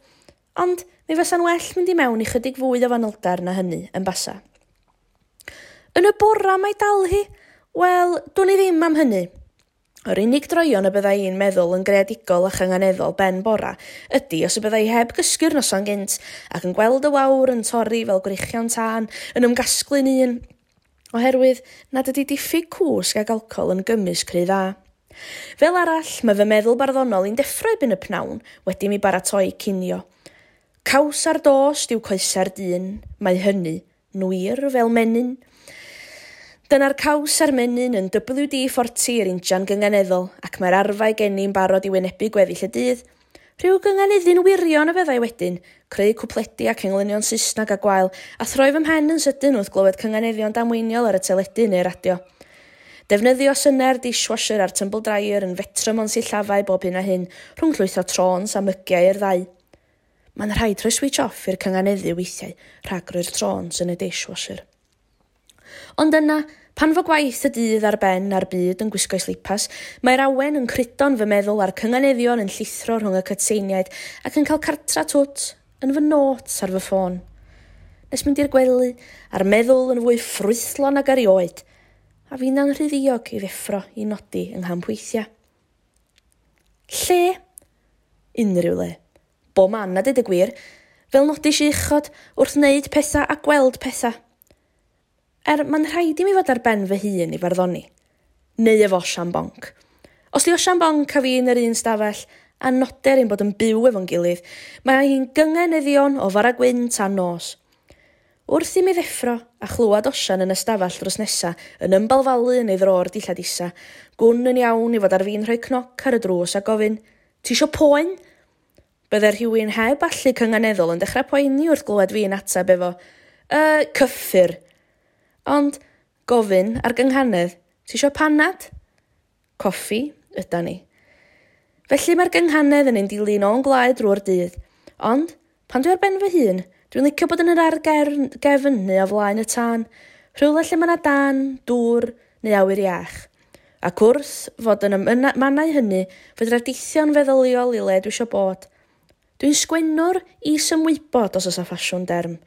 Ond mi fysa'n well mynd i mewn i chydig fwy o fanylder na hynny yn basa. Yn y bora mae dal hi? Wel, dwn i ddim am hynny. Yr unig droion y byddai i'n meddwl yn greadigol a chynganeddol ben bora ydy os y byddai heb gysgu'r noson gynt ac yn gweld y wawr yn torri fel gwreichion tân yn ymgasglu'n un, oherwydd nad ydy diffyg cwsg ag alcohol yn gymysg rhy dda. Fel arall, mae fy meddwl barddonol i'n deffro erbyn y pnawn wedi mi baratoi cinio. Caws ar dost yw coesa'r dyn, mae hynny nwir fel menyn. Dyna'r caws a'r menyn yn WD-40 i'r injan gynganeddol, ac mae'r arfau gen i'n barod i wynebu gweddill y dydd. Rhyw gynganeddu'n wirion y fyddai wedyn, creu cwpledi ac englynion Saesneg a gwael, a throi fy mhen yn sydyn wrth glywed cynganeddion damweiniol ar y teledu neu'r radio. Defnyddio synnau'r dishwasher a'r tumble dryer yn fetrwm o'n sillafau bob hyn a hyn, rhwng llwytho trôns a mygiau i'r ddau. Mae'n rhaid rhoi switch off i'r cynganeddu weithiau, rhag roi'r trôns yn y dishwasher. Ond yna, pan fo gwaith y dydd ar ben a'r byd yn gwisgo'i slipas, mae'r awen yn crydo'n fy meddwl a'r cynganeddion yn llithro rhwng y cytseiniaid ac yn cael cartra twt yn fy notes ar fy ffôn. Nes mynd i'r gwely a'r meddwl yn fwy ffrwythlon ag erioed, a finna'n rhy ddiog i ddeffro i nodi yng nghampweithiau. Lle? Unrhyw le. Bo man a dweud y gwir, fel nodis i uchod wrth wneud pethau a gweld pethau. Mae'n rhaid i mi fod ar ben fy hun i farddoni. Neu efo Osian Bonc. Os di Osian Bonc a fi yn yr un stafell, A noder ein bod yn byw efo'n gilydd, mae hi'n gyngeneddion o fara gwyn tan nos. Wrth i mi ddeffro a chlywed Osian yn ystafell drws nesa yn ymbalfalu yn ei ddro'r dillad isa, gwn yn iawn i fod ar fin rhoi cnoc ar y drws a gofyn, "Ti isio poen?" Bydde rhywun heb allu cynganeddol yn dechrau poeni wrth glywed fi'n ateb efo, cyffur." Ond gofyn ar gynghanedd, "Ti isio panad?" Coffi yda ni. Felly mae'r gynghanedd yn ein dilyn o'n gwlâu drwy'r dydd. Ond, pan dwi ar ben fy hun, dwi'n licio bod yn yr ardd gefn neu o flaen y tân, rhywle lle mae 'na dân, dŵr neu awyr iach. Ac wrth fod yn y mannau hynny, fedra deithio'n feddyliol i le dwi isio bod. Dwi'n sgwennwr is-ymwybod os oes 'na ffasiwn derm.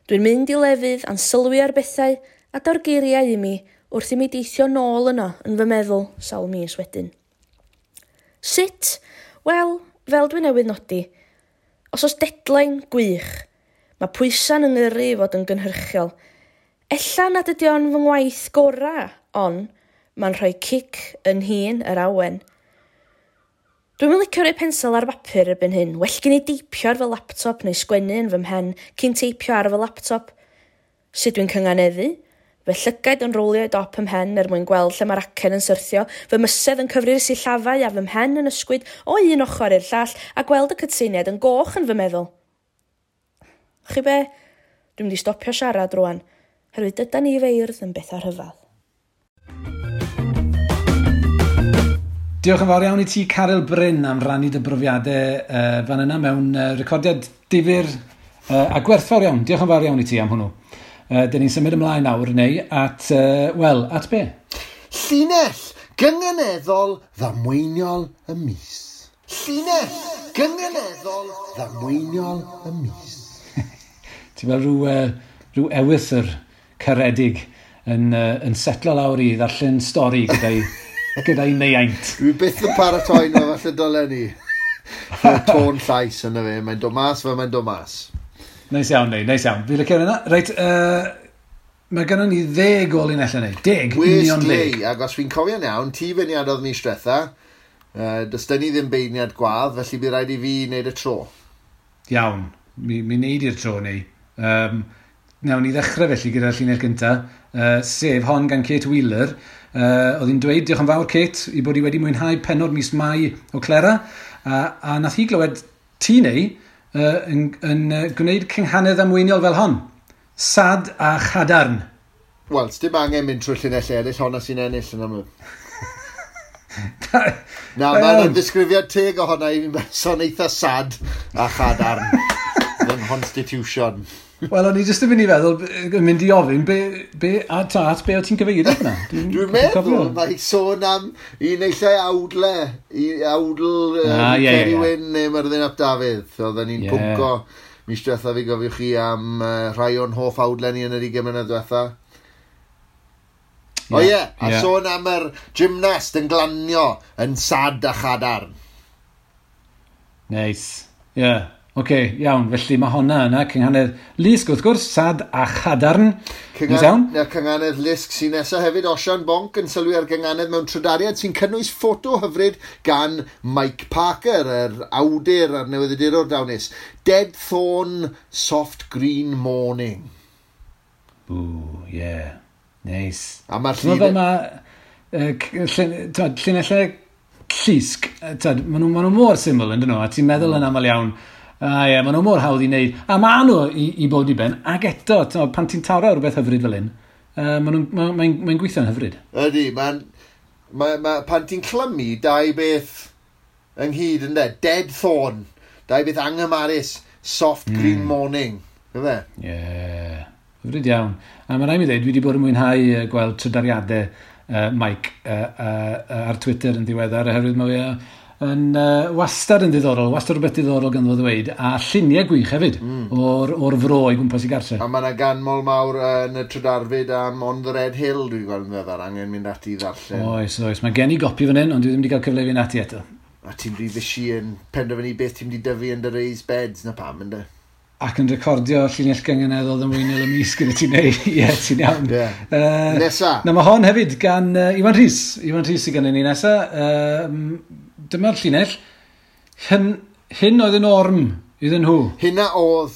Dwi'n mynd i lefydd a'n sylwi ar bethau a daw'r geiriau i mi wrth i mi deithio nôl yno yn fy meddwl sawl mis wedyn. Sut? Wel, fel dwi newydd nodi, os oes deadline, gwych. Mae pwysau'n yng ngyrru i fod yn gynhyrchiol. Ella nad ydy o'n fy ngwaith gorau, ond mae'n rhoi cic yn hun yr awen. Dwi'm yn licio rhoi pensel ar bapur erbyn hyn. Well gen i deipio ar fy laptop neu sgwennu yn fy mhen cyn teipio ar fy laptop. Sut dwi'n cynganeddu? Fy llygaid yn rowlio i dop 'y mhen er mwyn gweld lle mae'r acen yn syrthio, fy mysedd yn cyfri'r sillafau a fy mhen yn ysgwyd o un ochr i'r llall a gweld y cytseiniaid yn goch yn fy meddwl. Chi be? Dwi'n mynd i stopio siarad rwan, herwydd dydan ni feirdd yn bethau rhyfedd. Diolch yn fawr iawn i ti, Caryl Bryn, am rannu dy brofiadau fan yna mewn recordiad difyr a gwerthfawr iawn. Diolch yn fawr iawn i ti am hwnnw. Dyn ni'n symud ymlaen nawr, neu at, wel, at be? Llinell gynganeddol ddamweiniol y mis. Llinell gynganeddol ddamweiniol y mis. Ti fel rhyw ewythr caredig yn setlo lawr i ddarllen stori gyda'i neiaint. Dwi byth yn paratoi nhw, falle dylen ni. Y tôn llais yna fe, mae'n dod mas fel mae'n dod mas. Neis iawn, neu, neis iawn. Fi'n licio hynna. Reit, mae gennym ni 10 o linellau neu. 10, union 10. Ac os fi'n cofio'n iawn, ti feirniadodd mis diwetha, does dyn ni ddim beirniad gwadd, felly bydd rhaid i fi wneud y tro. Iawn, mi wneud i'r tro neu. Nawn ni ddechrau felly gyda'r llinell gyntaf, sef hon gan Kate Wheeler. Oedd hi'n dweud, diolch yn fawr Kate, i bod hi wedi mwynhau pennod mis Mai o Clera, a nath hi glywed ti neu yn gwneud cynghanedd ddamweiniol fel hon. Sad a chadarn. Wel, dim angen mynd trwy'r llinell eraill, honna sy'n ennill yn amlwg. Na, mae'n ddisgrifiad teg ohona i fi'n berson eitha sad a chadarn. Fy constitution. Wel, o'n i jyst yn mynd i feddwl, yn mynd i ofyn, be, a ta, at be o ti'n cyfeirio fyna? Dwi'n meddwl, mae sôn am un eillai awdle, i awdl Ceri Wyn neu Myrddin ap Dafydd. Oedden ni'n pwnco mis diwetha fi gofiwch chi am rhai o'n hoff awdle ni yn yr 20 mlynedd diwetha. O ie, a sôn am yr gymnast yn glanio yn sad a chadarn. Neis, ie. Yeah. Oce, iawn. Felly mae honna yna, cynghanedd Lusg wrth gwrs, sad a chadarn. Cynghanedd Lusg sy'n nesaf hefyd, Osian Bonc yn sylwi ar gynghanedd mewn trydariad sy'n cynnwys ffoto hyfryd gan Mike Parker, yr awdur a'r newyddiadurwr dawnus. Dead Thorn, Soft Green Morning. Ooh, yeah. Neis. A mae'r llun... Fel mae llinellau llusg, maen nhw mor syml yn dyn nhw, a ti'n meddwl yn aml iawn, a ie, maen nhw mor hawdd i wneud. A maen nhw i bod i ben, ac eto, pan ti'n taro rhywbeth hyfryd fel hyn, mae'n gweithio'n hyfryd. Ydy, pan ti'n clymu dau beth ynghyd yn de, Dead Thorn, dau beth anghymarus, Soft Green Morning, yfe? Ie, hyfryd iawn. A mae rhaid mi ddweud, dwi wedi bod yn mwynhau gweld trydariadau Mike ar Twitter yn ddiweddar, oherwydd mae fe yn wastad yn ddiddorol, wastad rhywbeth diddorol ganddo fo ddweud, a lluniau gwych hefyd o'r fro i gwmpas i gartre. A mae yna ganmol mawr yn y trydarfyd am On the Red Hill, dwi'n gweld yn ddiweddar, angen mynd ati i ddarllen. Oes, oes, mae gen i gopi fan hyn, ond dwi ddim wedi cael cyfle i fynd ati eto. A ti'n rhy fysi yn penderfynu beth ti'n mynd i dyfu yn dy raised beds, na pam, ynddo? Ac yn recordio llinell gynganeddol ddamweiniol y mis gyda ti'n neud. Ie, ti'n iawn. Yeah. Nesa. Na, mae hon hefyd gan Iwan Rhys. Iwan Rhys sydd gennym ni nesa. Dyma'r llinell. Hyn oedd y norm iddyn nhw. Hynna oedd.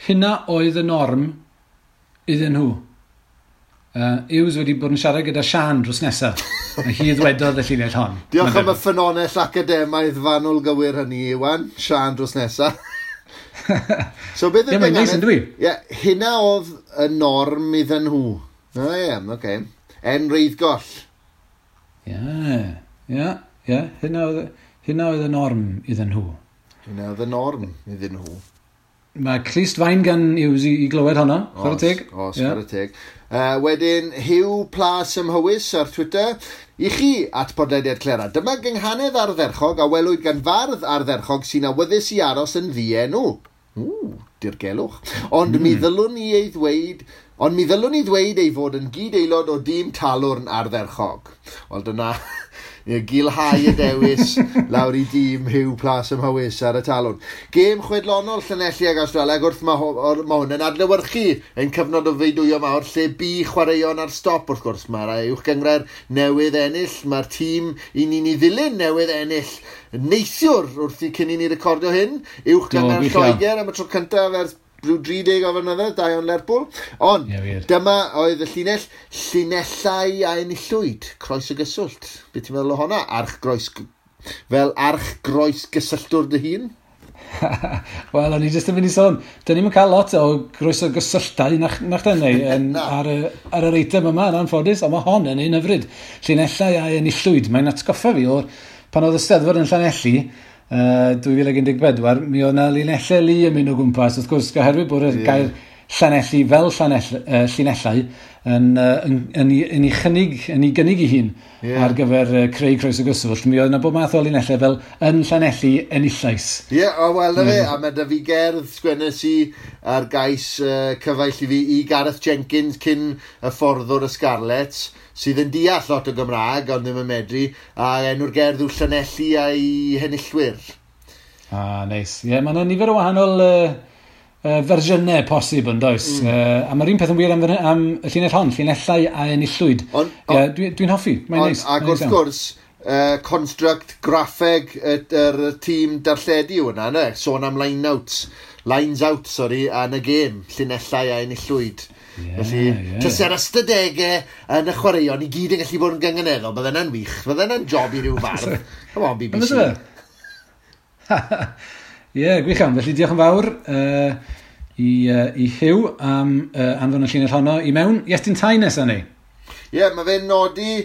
Hynna oedd y norm iddyn nhw. Hughes wedi bod yn siarad gyda Sian drws nesaf. A hi ddwedodd y llinell hon. Diolch am y ffynonell academaidd fanwl gywir hynny, Iwan. Sian drws nesaf. So beth yw'r Ie, mae'n dwi? Ie, hynna oedd y norm iddyn nhw. O ie, oce. En Reiddgoll. Ie. Hynna oedd y norm iddyn nhw. Hynna oedd y norm iddyn nhw. Mae clust fain gan Hughes i glywed honno, chwarae teg. Os, chwarae teg. Wedyn, Hugh Plas ym Mhywys ar Twitter. I chi at podlediad Clera. Dyma gynghanedd ardderchog a welwyd gan fardd ardderchog sy'n awyddus i aros yn ddienw. Ww, dirgelwch. Ond mi ddylwn i ei ddweud... Ond mi ddylwn i ddweud ei fod yn gyd-aelod o dîm Talwrn ardderchog. Wel, dyna gilhau y dewis lawr i dîm Hugh Plas ym Mhywys ar y Talwrn. Gêm chwedlonol Llanelli ag Awstralia, ac wrth mae hwn yn adlewyrchu ein cyfnod o feidwyo mawr lle bu chwaraeon ar stop, wrth gwrs. Mae'r uwch gynghrair newydd ennill, mae'r tîm i ni'n ei ddilyn newydd ennill neithiwr wrth i cyn i ni recordio hyn, uwch gynghrair Lloegr am y tro cyntaf ers rhyw 30 o flynyddoedd, da iawn Lerpwl. Ond dyma oedd y llinell, llinellau a enillwyd, croes y gyswllt. Be ti'n meddwl o honna? Fel arch-groes gysylltwr dy hun? Wel, o'n i jyst yn mynd i sôn, dyn ni'n cael lot o groes o gysylltau nach dyn ni ar yr eitem yma yn anffodus, ond mae hon yn un hyfryd. Llinellau a enillwyd. Mae'n atgoffa fi o'r pan oedd y Steddfod yn Llanelli, 2014, mi oedd yna linellau lu yn mynd o gwmpas, wrth gwrs, oherwydd bod y gair Llanelli fel llinellau yn ei gynnig ei hun ar gyfer creu croes o gyswllt. Mi oedd yna bob math o linellau fel yn Llanelli enillais. Ie, o wel na fe, a mae da fi gerdd sgwennes i ar gais cyfaill i fi i Gareth Jenkins cyn y fforddwr y Scarlets, sydd yn deall lot o Gymraeg, ond ddim yn medru, a enw'r gerdd yw Llanelli a'i henillwyr. Ah, neis. Ie, mae yna nifer o wahanol fersiynau posib yn does. A mae'r un peth yn wir am y llinell hon, llinellau a enillwyd. Dwi'n hoffi, mae'n neis. Ac wrth gwrs, construct graffeg yr tîm darlledu yw hwnna, ne? Sôn am lines out, sorry, yn y gêm, llinellau a enillwyd. Felly, tase'r ystadegau yn y chwaraeon i gyd yn gallu bod yn gynganeddol, bydde hynna'n wych, bydde hynna'n job i ryw fardd. Come on, BBC. Ie, gwych iawn. Felly diolch yn fawr i Hugh am anfon y llinell honno i mewn. Iestyn Tai nesaf ni. Ie, mae fe'n nodi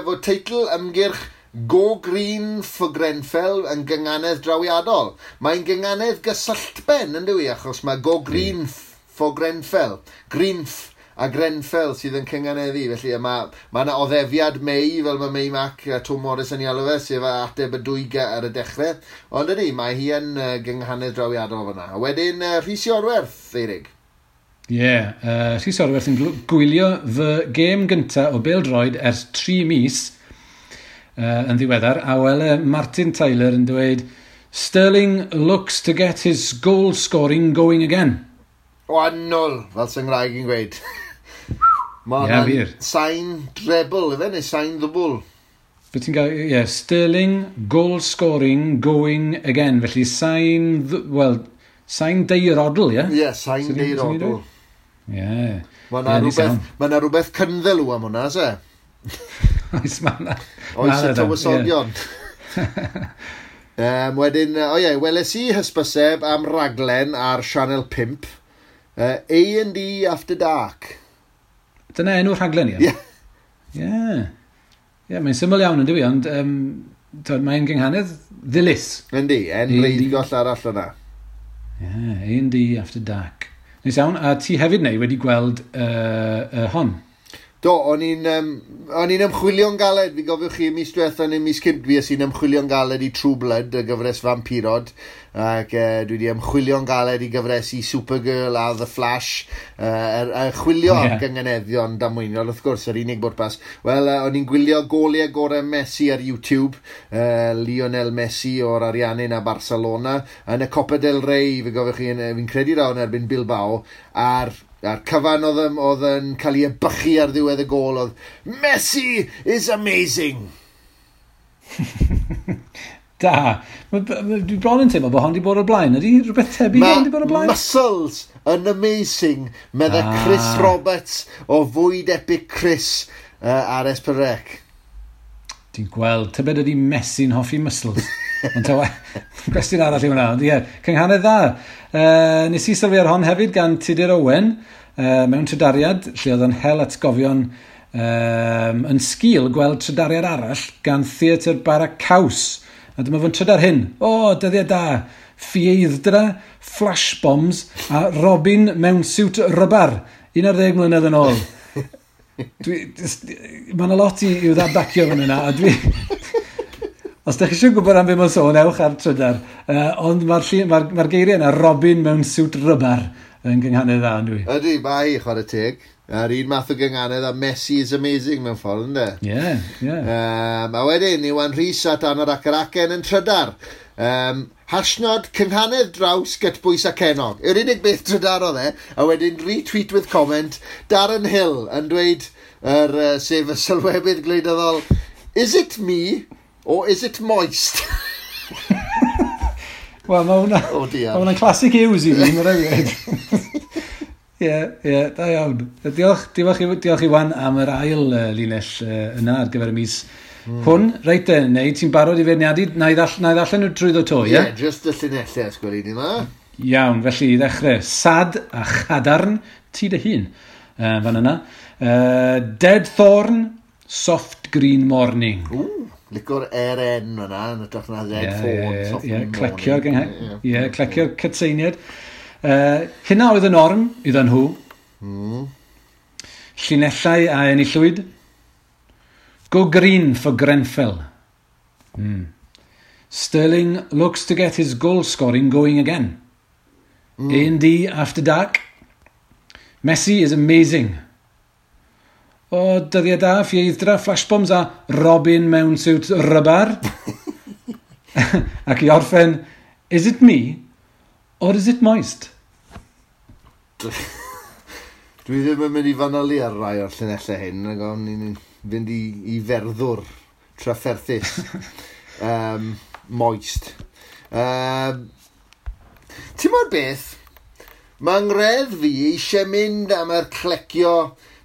fod teitl ymgyrch Go Green for Grenfell yn gynganedd drawiadol. Mae'n gynganedd gysylltben, yn dyw i, achos mae Go Green for Grenfell. Greenf a Grenfell sydd yn cynganeddu. Felly mae yna oddefiad May, fel mae May Mac a Tom Morris yn ei alw fe, sef ateb y dwy ar y dechrau. Ond ydy, mae hi yn gynghanedd drawiadol fyna. A wedyn Rhys Iorwerth, Eirig. Ie, Rhys Iorwerth yn gwylio fy gêm gyntaf o bêl-droed ers 3 mis yn ddiweddar, a wele Martin Tyler yn dweud, Sterling looks to get his goal scoring going again. O, annwl, fel sy'n Nghymraeg i'n gweud. Mae hwnna'n sain treble, ife, neu sain ddwbl. Be ti'n gael, ie, Sterling, goal scoring, going again. Felly sain, wel, sain deirodl, ie? Ie, sain deirodl. Ie. Mae yna rhywbeth cynddelw am hwnna, se? Oes, mae yna. Oes y tywysogion. Wedyn, o ie, weles i hysbyseb am raglen ar Channel 5, A&D After Dark. Dyna enw'r rhaglen, ie? Ie. Ie, mae'n syml iawn yn dywi, ond mae'n gynghanedd ddilys. Yndi, en reidigoll arall yna. Ie, A&D After Dark. Neis iawn, a ti hefyd neu wedi gweld hon? Do, o'n i'n ymchwilio'n galed, fi gofiwch chi mis diwetha neu mis cynt, fi i'n ymchwilio'n galed i True Blood, y gyfres vampirod, ac dwi wedi ymchwilio'n galed i gyfres i Supergirl a The Flash, chwilio am gynganeddion damweiniol, wrth gwrs, yr unig bwrpas. Wel, o'n i'n gwylio goliau gorau Messi ar YouTube, Lionel Messi o'r Ariannin a Barcelona, yn y Copa del Rey, fi gofiwch chi, fi'n credu rawn erbyn Bilbao, a'r cyfan oedd yn cael ei ebychu ar ddiwedd y gôl oedd Messi is amazing! Da. Dwi bron yn teimlo bod hon 'di bod o'r blaen. Ydy rhywbeth tebyg hon 'di bod o'r blaen? Muscles yn amazing, medde Chris Roberts o Fwyd Epic Chris ar S4C. Ti'n gweld, tybed ydy Messi'n hoffi muscles? Ond ta cwestiwn arall i hwnna. Ond ie, cynghanedd dda. Nes i sylwi ar hon hefyd gan Tudur Owen mewn trydariad, lle oedd yn hel atgofion yn sgil gweld trydariad arall gan Theatr Bara Caws. A dyma fo'n trydar hyn. O, dyddiau da. Ffieidd-dra, flash bombs a Robin mewn siwt rybar. 11 mlynedd yn ôl. Mae yna lot i'w ddadbacio fan yna, a dwi... Os ydych chi eisiau gwybod am be mae'n sôn, ewch ar trydar. Ond mae'r geiriau yna, Robin mewn siwt rybar, yn gynghanedd dda, yn dwi. Ydy, mae hi, chwarae teg. A'r un math o gynghanedd a Messi is amazing mewn ffordd, ynddo? Ie, ie. A wedyn, Iwan Rhys at Anorak yr Acen yn trydar. Hashnod cynghanedd draws gytbwys a cenog. Yw'r unig beth trydar oedd e, a wedyn retweet with comment, Darren Hill yn dweud, sef y sylwebydd gwleidyddol, "Is it me or is it moist?" Wel, mae hwnna... Oh dear. Mae hwnna'n classic Hughes i fi, mae'n rhaid. Ie, da iawn. Diolch Iwan am yr ail linell yna ar gyfer y mis hwn. Reit de, neu ti'n barod i feirniadu? Na i ddarllen nhw trwyddo to, ie? Ie, just y llinellau, os gweli ni ma. Iawn, felly i ddechrau, sad a chadarn, ti dy hun, fan yna. Dead Thorn, Soft Green Morning. Ww, licio'r RN fyna, yn hytrach na Dead Thorn, Soft Green Morning. Ie, clecio'r cytseiniad. Hynna oedd y norm iddyn nhw. Llinellau a enillwyd. Go green for Grenfell. Sterling looks to get his goal scoring going again. A&D after dark. Messi is amazing. O, dyddiau da, ffieidd-dra, flashbombs a Robin mewn siwt rybar. Ac i orffen, is it me or is it moist? Dwi ddim yn mynd i fanylu ar rai o'r llinellau hyn, ac o'n i'n fynd i ferddwr trafferthus. Moist. Ti'n modd beth? Mae ngreddf fi eisiau mynd am yr clecio.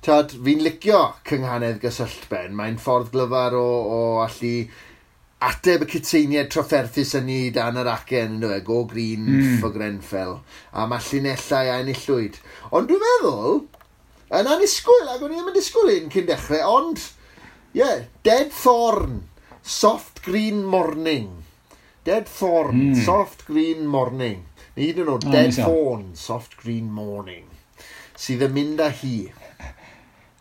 Tad, fi'n licio cynghanedd gysylltben. Mae'n ffordd glyfar o allu ateb y cytseiniad trafferthus yn ni dan yr acen, yn dweud, go green for Grenfell. A mae llinellau a enillwyd. Ond dwi'n meddwl, yn annisgwyl, ac o'n i ddim yn disgwyl un cyn dechrau, ond, ie, yeah, Dead Thorn, Soft Green Morning. Dead Thorn, Soft Green Morning. Neu hyd yn oed, Dead Thorn, Soft Green Morning. Sydd yn mynd â hi.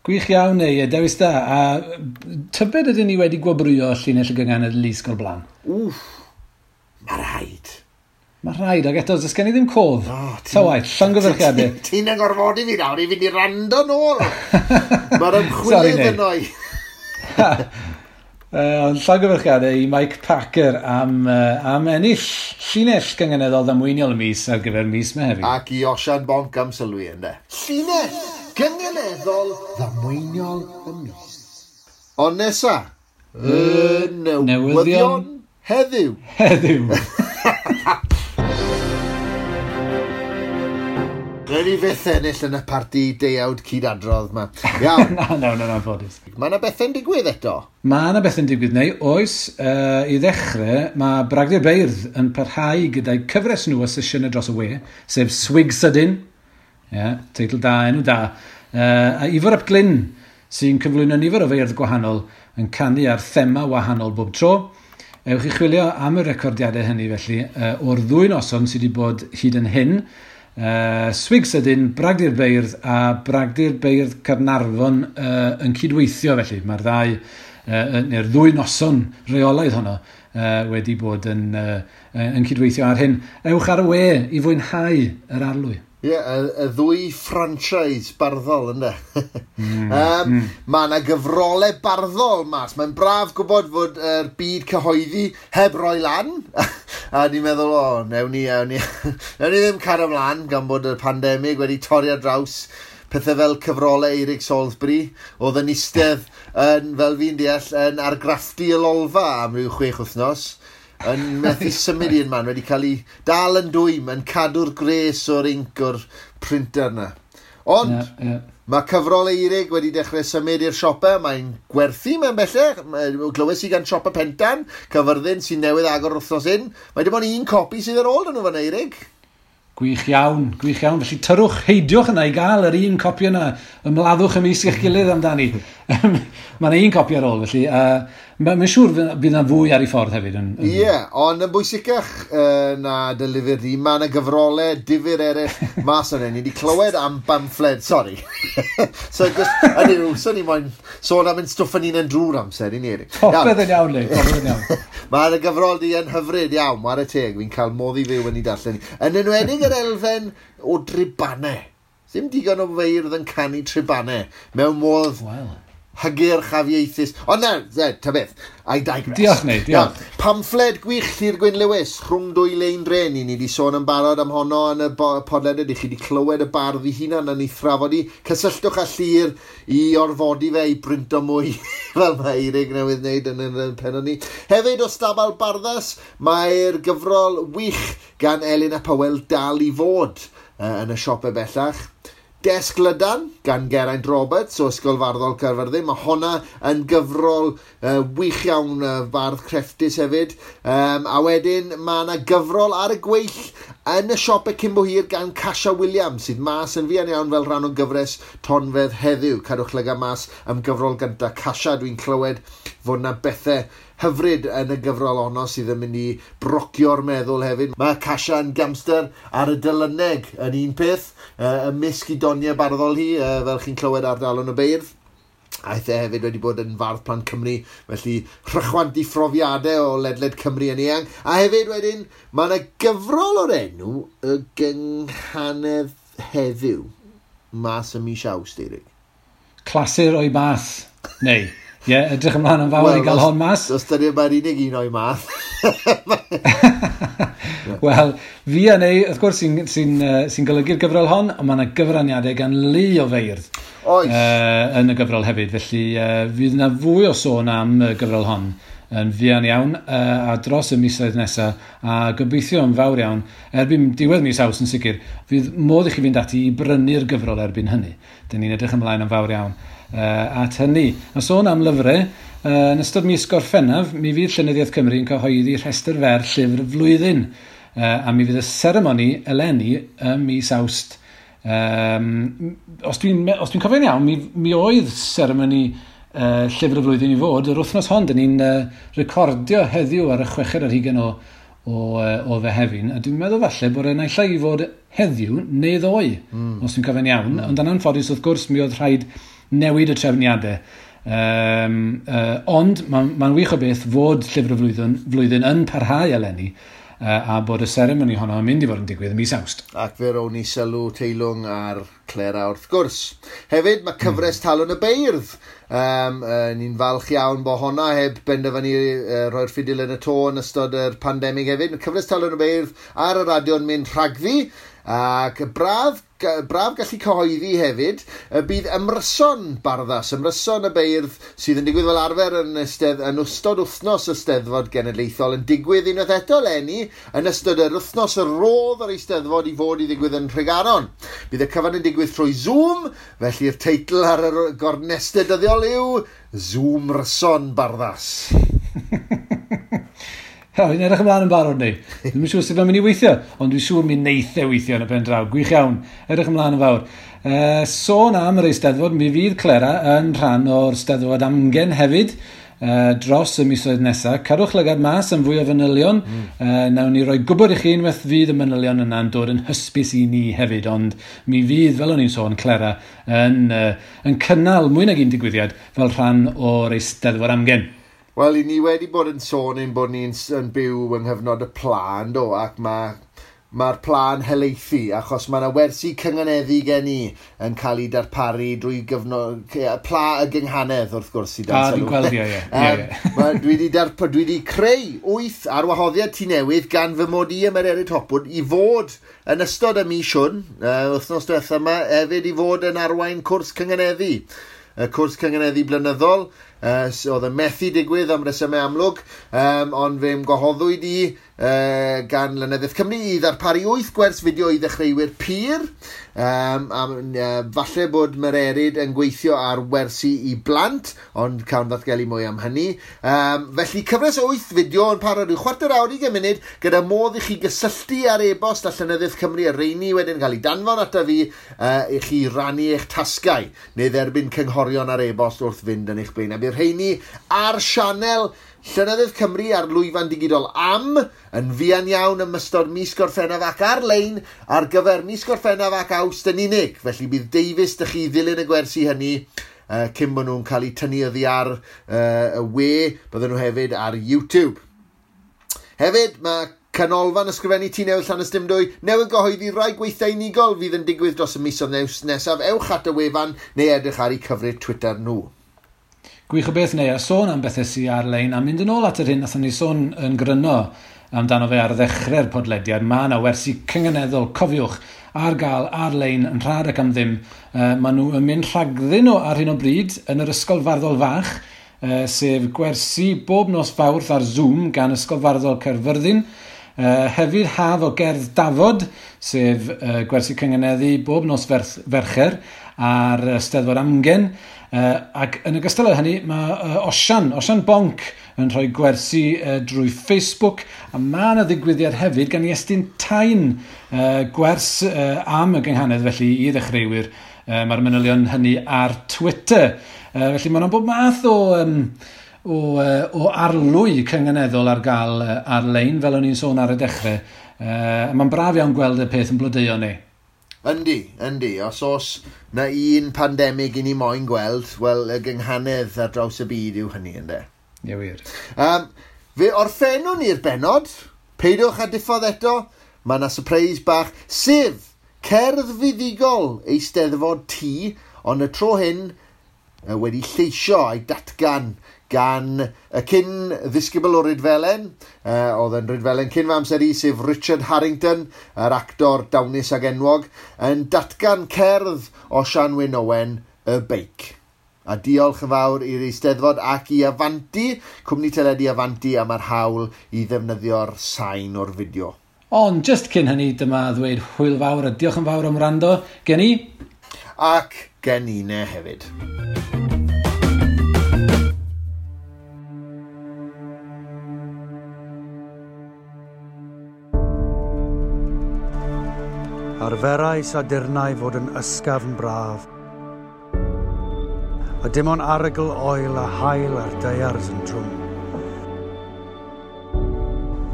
Gwych iawn, neu, dewis da. A tybed ydyn ni wedi gwobrwyo llinell y gynghanedd Lusg o'r blaen? Wff, mae rhaid. Mae rhaid, ac eto, does gen i ddim cof. Ta waith, llongyfarchiadau. Ti'n angorfodi fi nawr i fynd i rando nôl. Mae'r ymchwilydd yno i. Ond llongyfarchiadau i Mike Packer am ennill llinell gynganeddol ddamweiniol y mis ar gyfer mis Mehefin. Ac i Osian Bonc am sylwi ynddo. Llinell gynganeddol ddamweiniol y mis. Ond nesa, y newyddion heddiw. Heddiw. Rhaid ni fyth ennill yn y parti deuawd cydadrodd yma. Iawn. Na, ffodus. Mae yna bethau'n digwydd eto? Mae yna bethau'n digwydd, neu oes. I ddechrau, mae Bragdy'r Beirdd yn parhau gyda'i cyfres nhw o sesiynau dros y we, sef Swig Sydyn. Yeah, teitl da, enw da. A Ifor ap Glyn, sy'n cyflwyno nifer o feirdd gwahanol, yn canu ar thema wahanol bob tro. Ewch i chwilio am y recordiadau hynny, felly, o'r ddwy noson sydd wedi bod hyd yn hyn. Swig Sydyn, Bragdy'r Beirdd a Bragdy'r Beirdd Caernarfon yn cydweithio, felly. Mae'r ddau, neu'r ddwy noson reolaidd honno wedi bod yn cydweithio ar hyn. Ewch ar y we i fwynhau yr arlwy. Ie, y ddwy franchise barddol, ynddo? Mae yna gyfrolau barddol mas. Mae'n braf gwybod fod yr byd cyhoeddi heb roi lan. A ni'n meddwl, o, newn ni ddim cario ymlaen gan bod y pandemig wedi torri ar draws pethau fel cyfrolau Eirig Salisbury, oedd yn eistedd, yn, fel fi'n deall, yn argraffu y lolfa am ryw 6 wythnos. yn methu symud un man, wedi cael ei dal yn dwym, yn cadw'r gres o'r inc o'r printer yna. Ond, yeah. Mae cyfrol Eirig wedi dechrau symud i'r siopau, mae'n gwerthu mewn bellach. Glywes i gan siopa Pentan, Cyfyrddin sy'n newydd agor wythnos hyn. Mae dim ond un copi sydd ar ôl yn nhw fan Eirig. Gwych iawn, gwych iawn. Felly tyrwch, heidiwch yna i gael yr un copi yna. Ymladdwch ymysg eich gilydd amdani. Mae yna un copi ar ôl, felly. Mae'n siŵr bydd yna fwy ar ei ffordd hefyd. Ie, yeah, ond yn bwysicach na dy lyfr di, mae yna gyfrolau difyr eraill mas o'n. Ni wedi clywed am bamffled, sori. So, just, hynny yw, so ni moyn sôn am ein stwff yn un yn drwy'r amser, i ni. Eric. Popeth yn iawn, Lee, popeth yn iawn. Mae'r gyfrol di yn hyfryd iawn, whare teg, fi'n cael modd i fyw yn ei darllen. Yn enwedig yr elfen o dribanau. Ddim digon o feirdd yn canu tribanau mewn modd hygyrch afieithus. Ond na, ta beth, I digress. Diolch, Neu, diolch. Pamffled gwych Llyr Gwyn Lewis, rhwng dwy lein dren. Ni wedi sôn yn barod am honno yn y podlediad. I chi wedi clywed y bardd ei hunan yn ei thrafod i. Cysylltwch â Llyr i orfodi fe i brinto mwy, fel mae Eirig newydd wneud yn y pennod ni. Hefyd o Stabal Barddas, mae'r gyfrol wych gan Elin a Powell dal i fod yn y siopau bellach. Desg Lydan gan Geraint Roberts o Ysgol Farddol Caerfyrddin. Mae honna yn gyfrol wych iawn, bardd crefftus hefyd. A wedyn mae yna gyfrol ar y gweill yn y siopau cyn bo hir gan Casia Williams, sydd mas yn fuan iawn fel rhan o gyfres Tonfedd heddiw. Cadwch lygad mas am gyfrol gyntaf Casia. Dwi'n clywed fod yna bethau hyfryd yn y gyfrol honno sydd yn mynd i brocio'r meddwl hefyd. Mae Casia yn gamster ar y dylyneg yn un peth, ymysg i doniau barddol hi, fel chi'n clywed ar Dalwrn y Beirdd. Aeth e hefyd wedi bod yn fardd plant Cymru, felly rhychwant i phrofiadau o ledled Cymru yn eang. A hefyd wedyn, mae yna gyfrol o'r enw y Gynghanedd Heddiw, mas ym mis Awst, Eirig. Clasur o'i math, neu. Ie, yeah, edrych ymlaen yn fawr i gael hon mas. Os dyn mae'r unig un o'i math. Wel, fi a Neu, wrth gwrs, sy'n golygu'r gyfrol hon, ond mae yna gyfraniadau gan lu o feirdd. Oes. Yn y gyfrol hefyd, felly fydd yna fwy o sôn am y gyfrol hon yn fuan iawn a dros y misoedd nesaf, a gobeithio yn fawr iawn, erbyn diwedd mis Awst yn sicr, fydd modd i chi fynd ati i brynu'r gyfrol erbyn hynny. Dyn ni'n edrych ymlaen yn fawr iawn at hynny. A sôn am lyfrau, yn ystod mis Gorffennaf, mi fydd Llenyddiaeth Cymru yn cyhoeddi rhestr fer llyfr flwyddyn, a mi fydd y seremoni eleni ym mis Awst. Os dwi'n cofio'n iawn, mi oedd seremoni llyfr y flwyddyn i fod yr wythnos hon. Dyn ni'n recordio heddiw ar y 26 o Fehefin, a dwi'n meddwl falle bod e'n naill ai i fod heddiw neu ddoe, os dwi'n cofio'n iawn. Ond yn anffodus, wrth gwrs, mi oedd rhaid newid y trefniadau. Ond mae'n wych o beth fod llyfr y flwyddyn yn parhau eleni, a bod y seremoni honno yn mynd i fod yn digwydd ym mis Awst. Ac fe rown ni sylw teilwng ar Clera wrth gwrs. Hefyd mae cyfres Talwrn y Beirdd. Ni'n falch iawn bod honna heb benderfynu rhoi'r ffidil yn y to yn ystod yr pandemig hefyd. Mae cyfres Talwrn y Beirdd ar y radio'n mynd rhagddi, ac braf gallu cyhoeddi hefyd y bydd ymryson Barddas, ymryson y beirdd sydd yn digwydd fel arfer yn ystod wythnos y Steddfod Genedlaethol yn digwydd unwaith eto eleni yn ystod yr wythnos y rodd yr Eisteddfod i fod i ddigwydd yn Nhregaron. Bydd y cyfan yn digwydd trwy Zoom, felly'r teitl ar y gornestau dyddiol yw Zoom Ryson Barddas. Fi'n edrych ymlaen yn barod ni. Dwi'n siŵr sut mae'n mynd i weithio, ond dwi'n siŵr mi neith e weithio yn y pen draw. Gwych iawn, edrych ymlaen yn fawr. Sôn am yr Eisteddfod, mi fydd Clera yn rhan o'r Steddfod Amgen hefyd dros y misoedd nesaf. Cadwch lygad mas am fwy o fanylion. Nawn ni roi gwybod i chi unwaith fydd y manylion yna'n dod yn hysbys i ni hefyd, ond mi fydd, fel o'n i'n sôn, Clera yn cynnal mwy nag un digwyddiad fel rhan o'r Eisteddfod Amgen. Wel, i ni wedi bod yn sôn ein bod ni'n byw yng nghyfnod y pla, yndo, ac mae'r pla'n helaethu, achos mae yna wersi cynganeddu gen i yn cael ei darparu drwy gyfnod, pla y gynghanedd, wrth gwrs, i dan sylw. Dwi'n gweld, ie. Dwi wedi creu 8 ar wahoddiad Tŷ Newydd gan fy mod i am Mererid Hopwood i fod yn ystod y mis hwn, wythnos diwetha yma, hefyd i fod yn arwain cwrs cynganeddu. Y cwrs cynganeddu blynyddol. Oedd yn methu digwydd am resymau amlwg, ond fe'm gwahoddwyd i gan Lenyddiaeth Cymru i ddarparu 8 gwers fideo i ddechreuwyr pur. Falle bod Mererid yn gweithio ar wersi i blant, ond cawn ddatgelu mwy am hynny. Felly cyfres o 8 fideo yn para rhyw chwarter awr 20 munud, gyda modd i chi gysylltu ar e-bost a Llenyddiaeth Cymru a rheini wedyn cael ei danfon ata fi i chi rannu eich tasgau neu dderbyn cynghorion ar e-bost wrth fynd yn eich blaen. A bydd rheini ar sianel Llenyddiaeth Cymru ar lwyfan digidol am yn fuan iawn ym ystod mis Gorffennaf ac ar-lein ar gyfer mis Gorffennaf ac Awst yn unig. Felly bydd deufis dych chi ddilyn y gwersi hynny cyn bod nhw'n cael eu tynnu oddi ar y we. Bydden nhw hefyd ar YouTube. Hefyd, mae Canolfan Ysgrifennu Tŷ Newydd Llanystumdwy newydd gyhoeddi rai gweithdai unigol fydd yn digwydd dros y misoedd nesaf. Ewch at y wefan neu edrych ar eu cyfrif Twitter nhw. Gwych o beth neu, a sôn am bethau sydd ar-lein, a mynd yn ôl at yr hyn nathon ni sôn yn gryno amdano fe ar ddechrau'r podlediad, mae yna wersi cynganeddol, cofiwch, ar gael ar-lein yn rhad ac am ddim. Maen nhw yn mynd rhagddyn nhw ar hyn o bryd yn yr Ysgol Farddol Fach, sef gwersi bob nos Fawrth ar Zoom gan Ysgol Farddol Caerfyrddin. Hefyd haf o gerdd dafod, sef gwersi cynganeddu bob nos Fercher ar Steddfod Amgen. Ac yn ogystal â hynny, mae Osian Bonc yn rhoi gwersi drwy Facebook, a mae yna ddigwyddiad hefyd gan Iestyn Tyne, gwers am y gynghanedd felly i ddechreuwyr. Mae'r manylion hynny ar Twitter. Felly mae yna bob math o arlwy cynganeddol ar gael ar-lein, fel o'n i'n sôn ar y dechrau. Mae'n braf iawn gweld y peth yn blodeuo ni. Yndi. Os oes na un pandemig i ni moyn gweld, wel, y gynghanedd ar draws y byd yw hynny, ynde? Ie, wir. Fe orffennwn ni'r bennod. Peidiwch â diffodd eto. Mae yna surprise bach, sef cerdd fuddugol Eisteddfod T, ond y tro hyn wedi lleisio a'i datgan gan y cyn ddisgybl o Rydfelen, oedd yn Rydfelen cyn fy amser i, sef Richard Harrington, yr actor dawnus ag enwog, yn datgan cerdd o Sian Wyn Owen, Y Beic. A diolch yn fawr i'r Eisteddfod ac i Avanti, cwmni teledu Avanti, am yr hawl i ddefnyddio'r sain o'r fideo. Ond just cyn hynny, dyma ddweud hwyl fawr a diolch yn fawr am wrando gen i. Ac gen i ne hefyd. Arferais addurnau fod yn ysgafn braf, a dim ond arogl oel a haul ar daears yn drwm.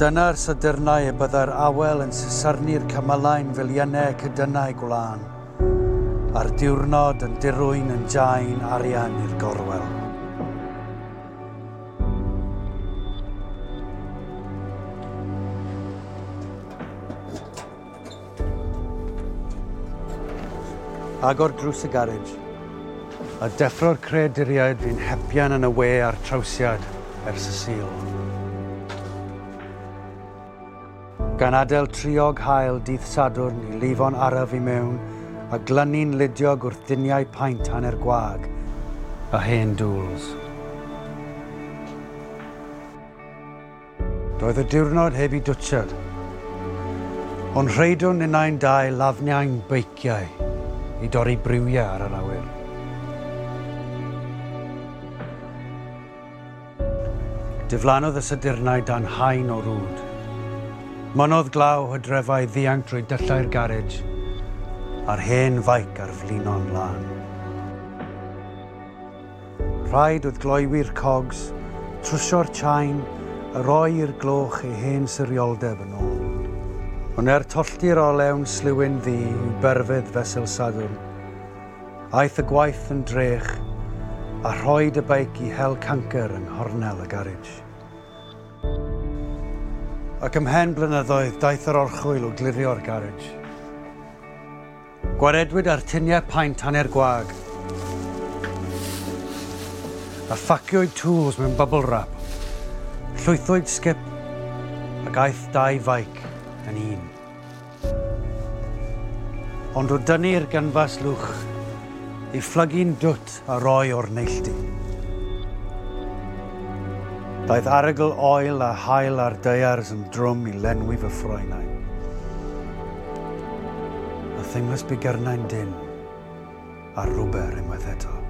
Dyna'r sadyrnau y byddai'r awel yn sysarnu'r cymylau'n filiynau cydynnau gwlân, a'r diwrnod yn dirwyn yn jain arian i'r gorwel. Agor drws y garej, a deffro'r creaduriaid fi'n hepian yn y we a'r trawsiad ers y Sul. Gan adael triog haul dydd Sadwrn i lifo'n araf i mewn a glynu'n ludiog wrth diniau paent hanner gwag a hen dŵls. Doedd y diwrnod heb i dwtsiad, ond rheidwn ninnau'n dau lafniau'n beiciau i dorri briwiau ar yr awyr. Diflannodd y sadyrnau dan haen o rwd. Mynnodd glaw hydrefau ddianc drwy dyllau'r garej a'r hen faic ar flino'n lân. Rhaid oedd gloywi'r cogs, trwsio'r chain, a roi i'r gloch ei hen sirioldeb yn ôl. Ond er tollti'r olewn sliwyn ddu i'w berfedd fesul Sadwrn, aeth y gwaith yn drech a rhoed y beic i hel cancer yng nghornel y garej. Ac ymhen blynyddoedd daeth yr orchwyl o glirio'r garej. Gwaredwyd ar tuniau paent hanner gwag a ffaciwyd tools mewn bubble wrap, llwythwyd sgip ac aeth dau faic yn un. Ond o dynnu'r gynfas lwch, ei phlygu'n dwt a roi o'r neilltu. Daeth arogl oel a haul ar daears yn drwm i lenwi fy ffroenau. A theimlais bigyrnau'n dynn, a rwber unwaith eto.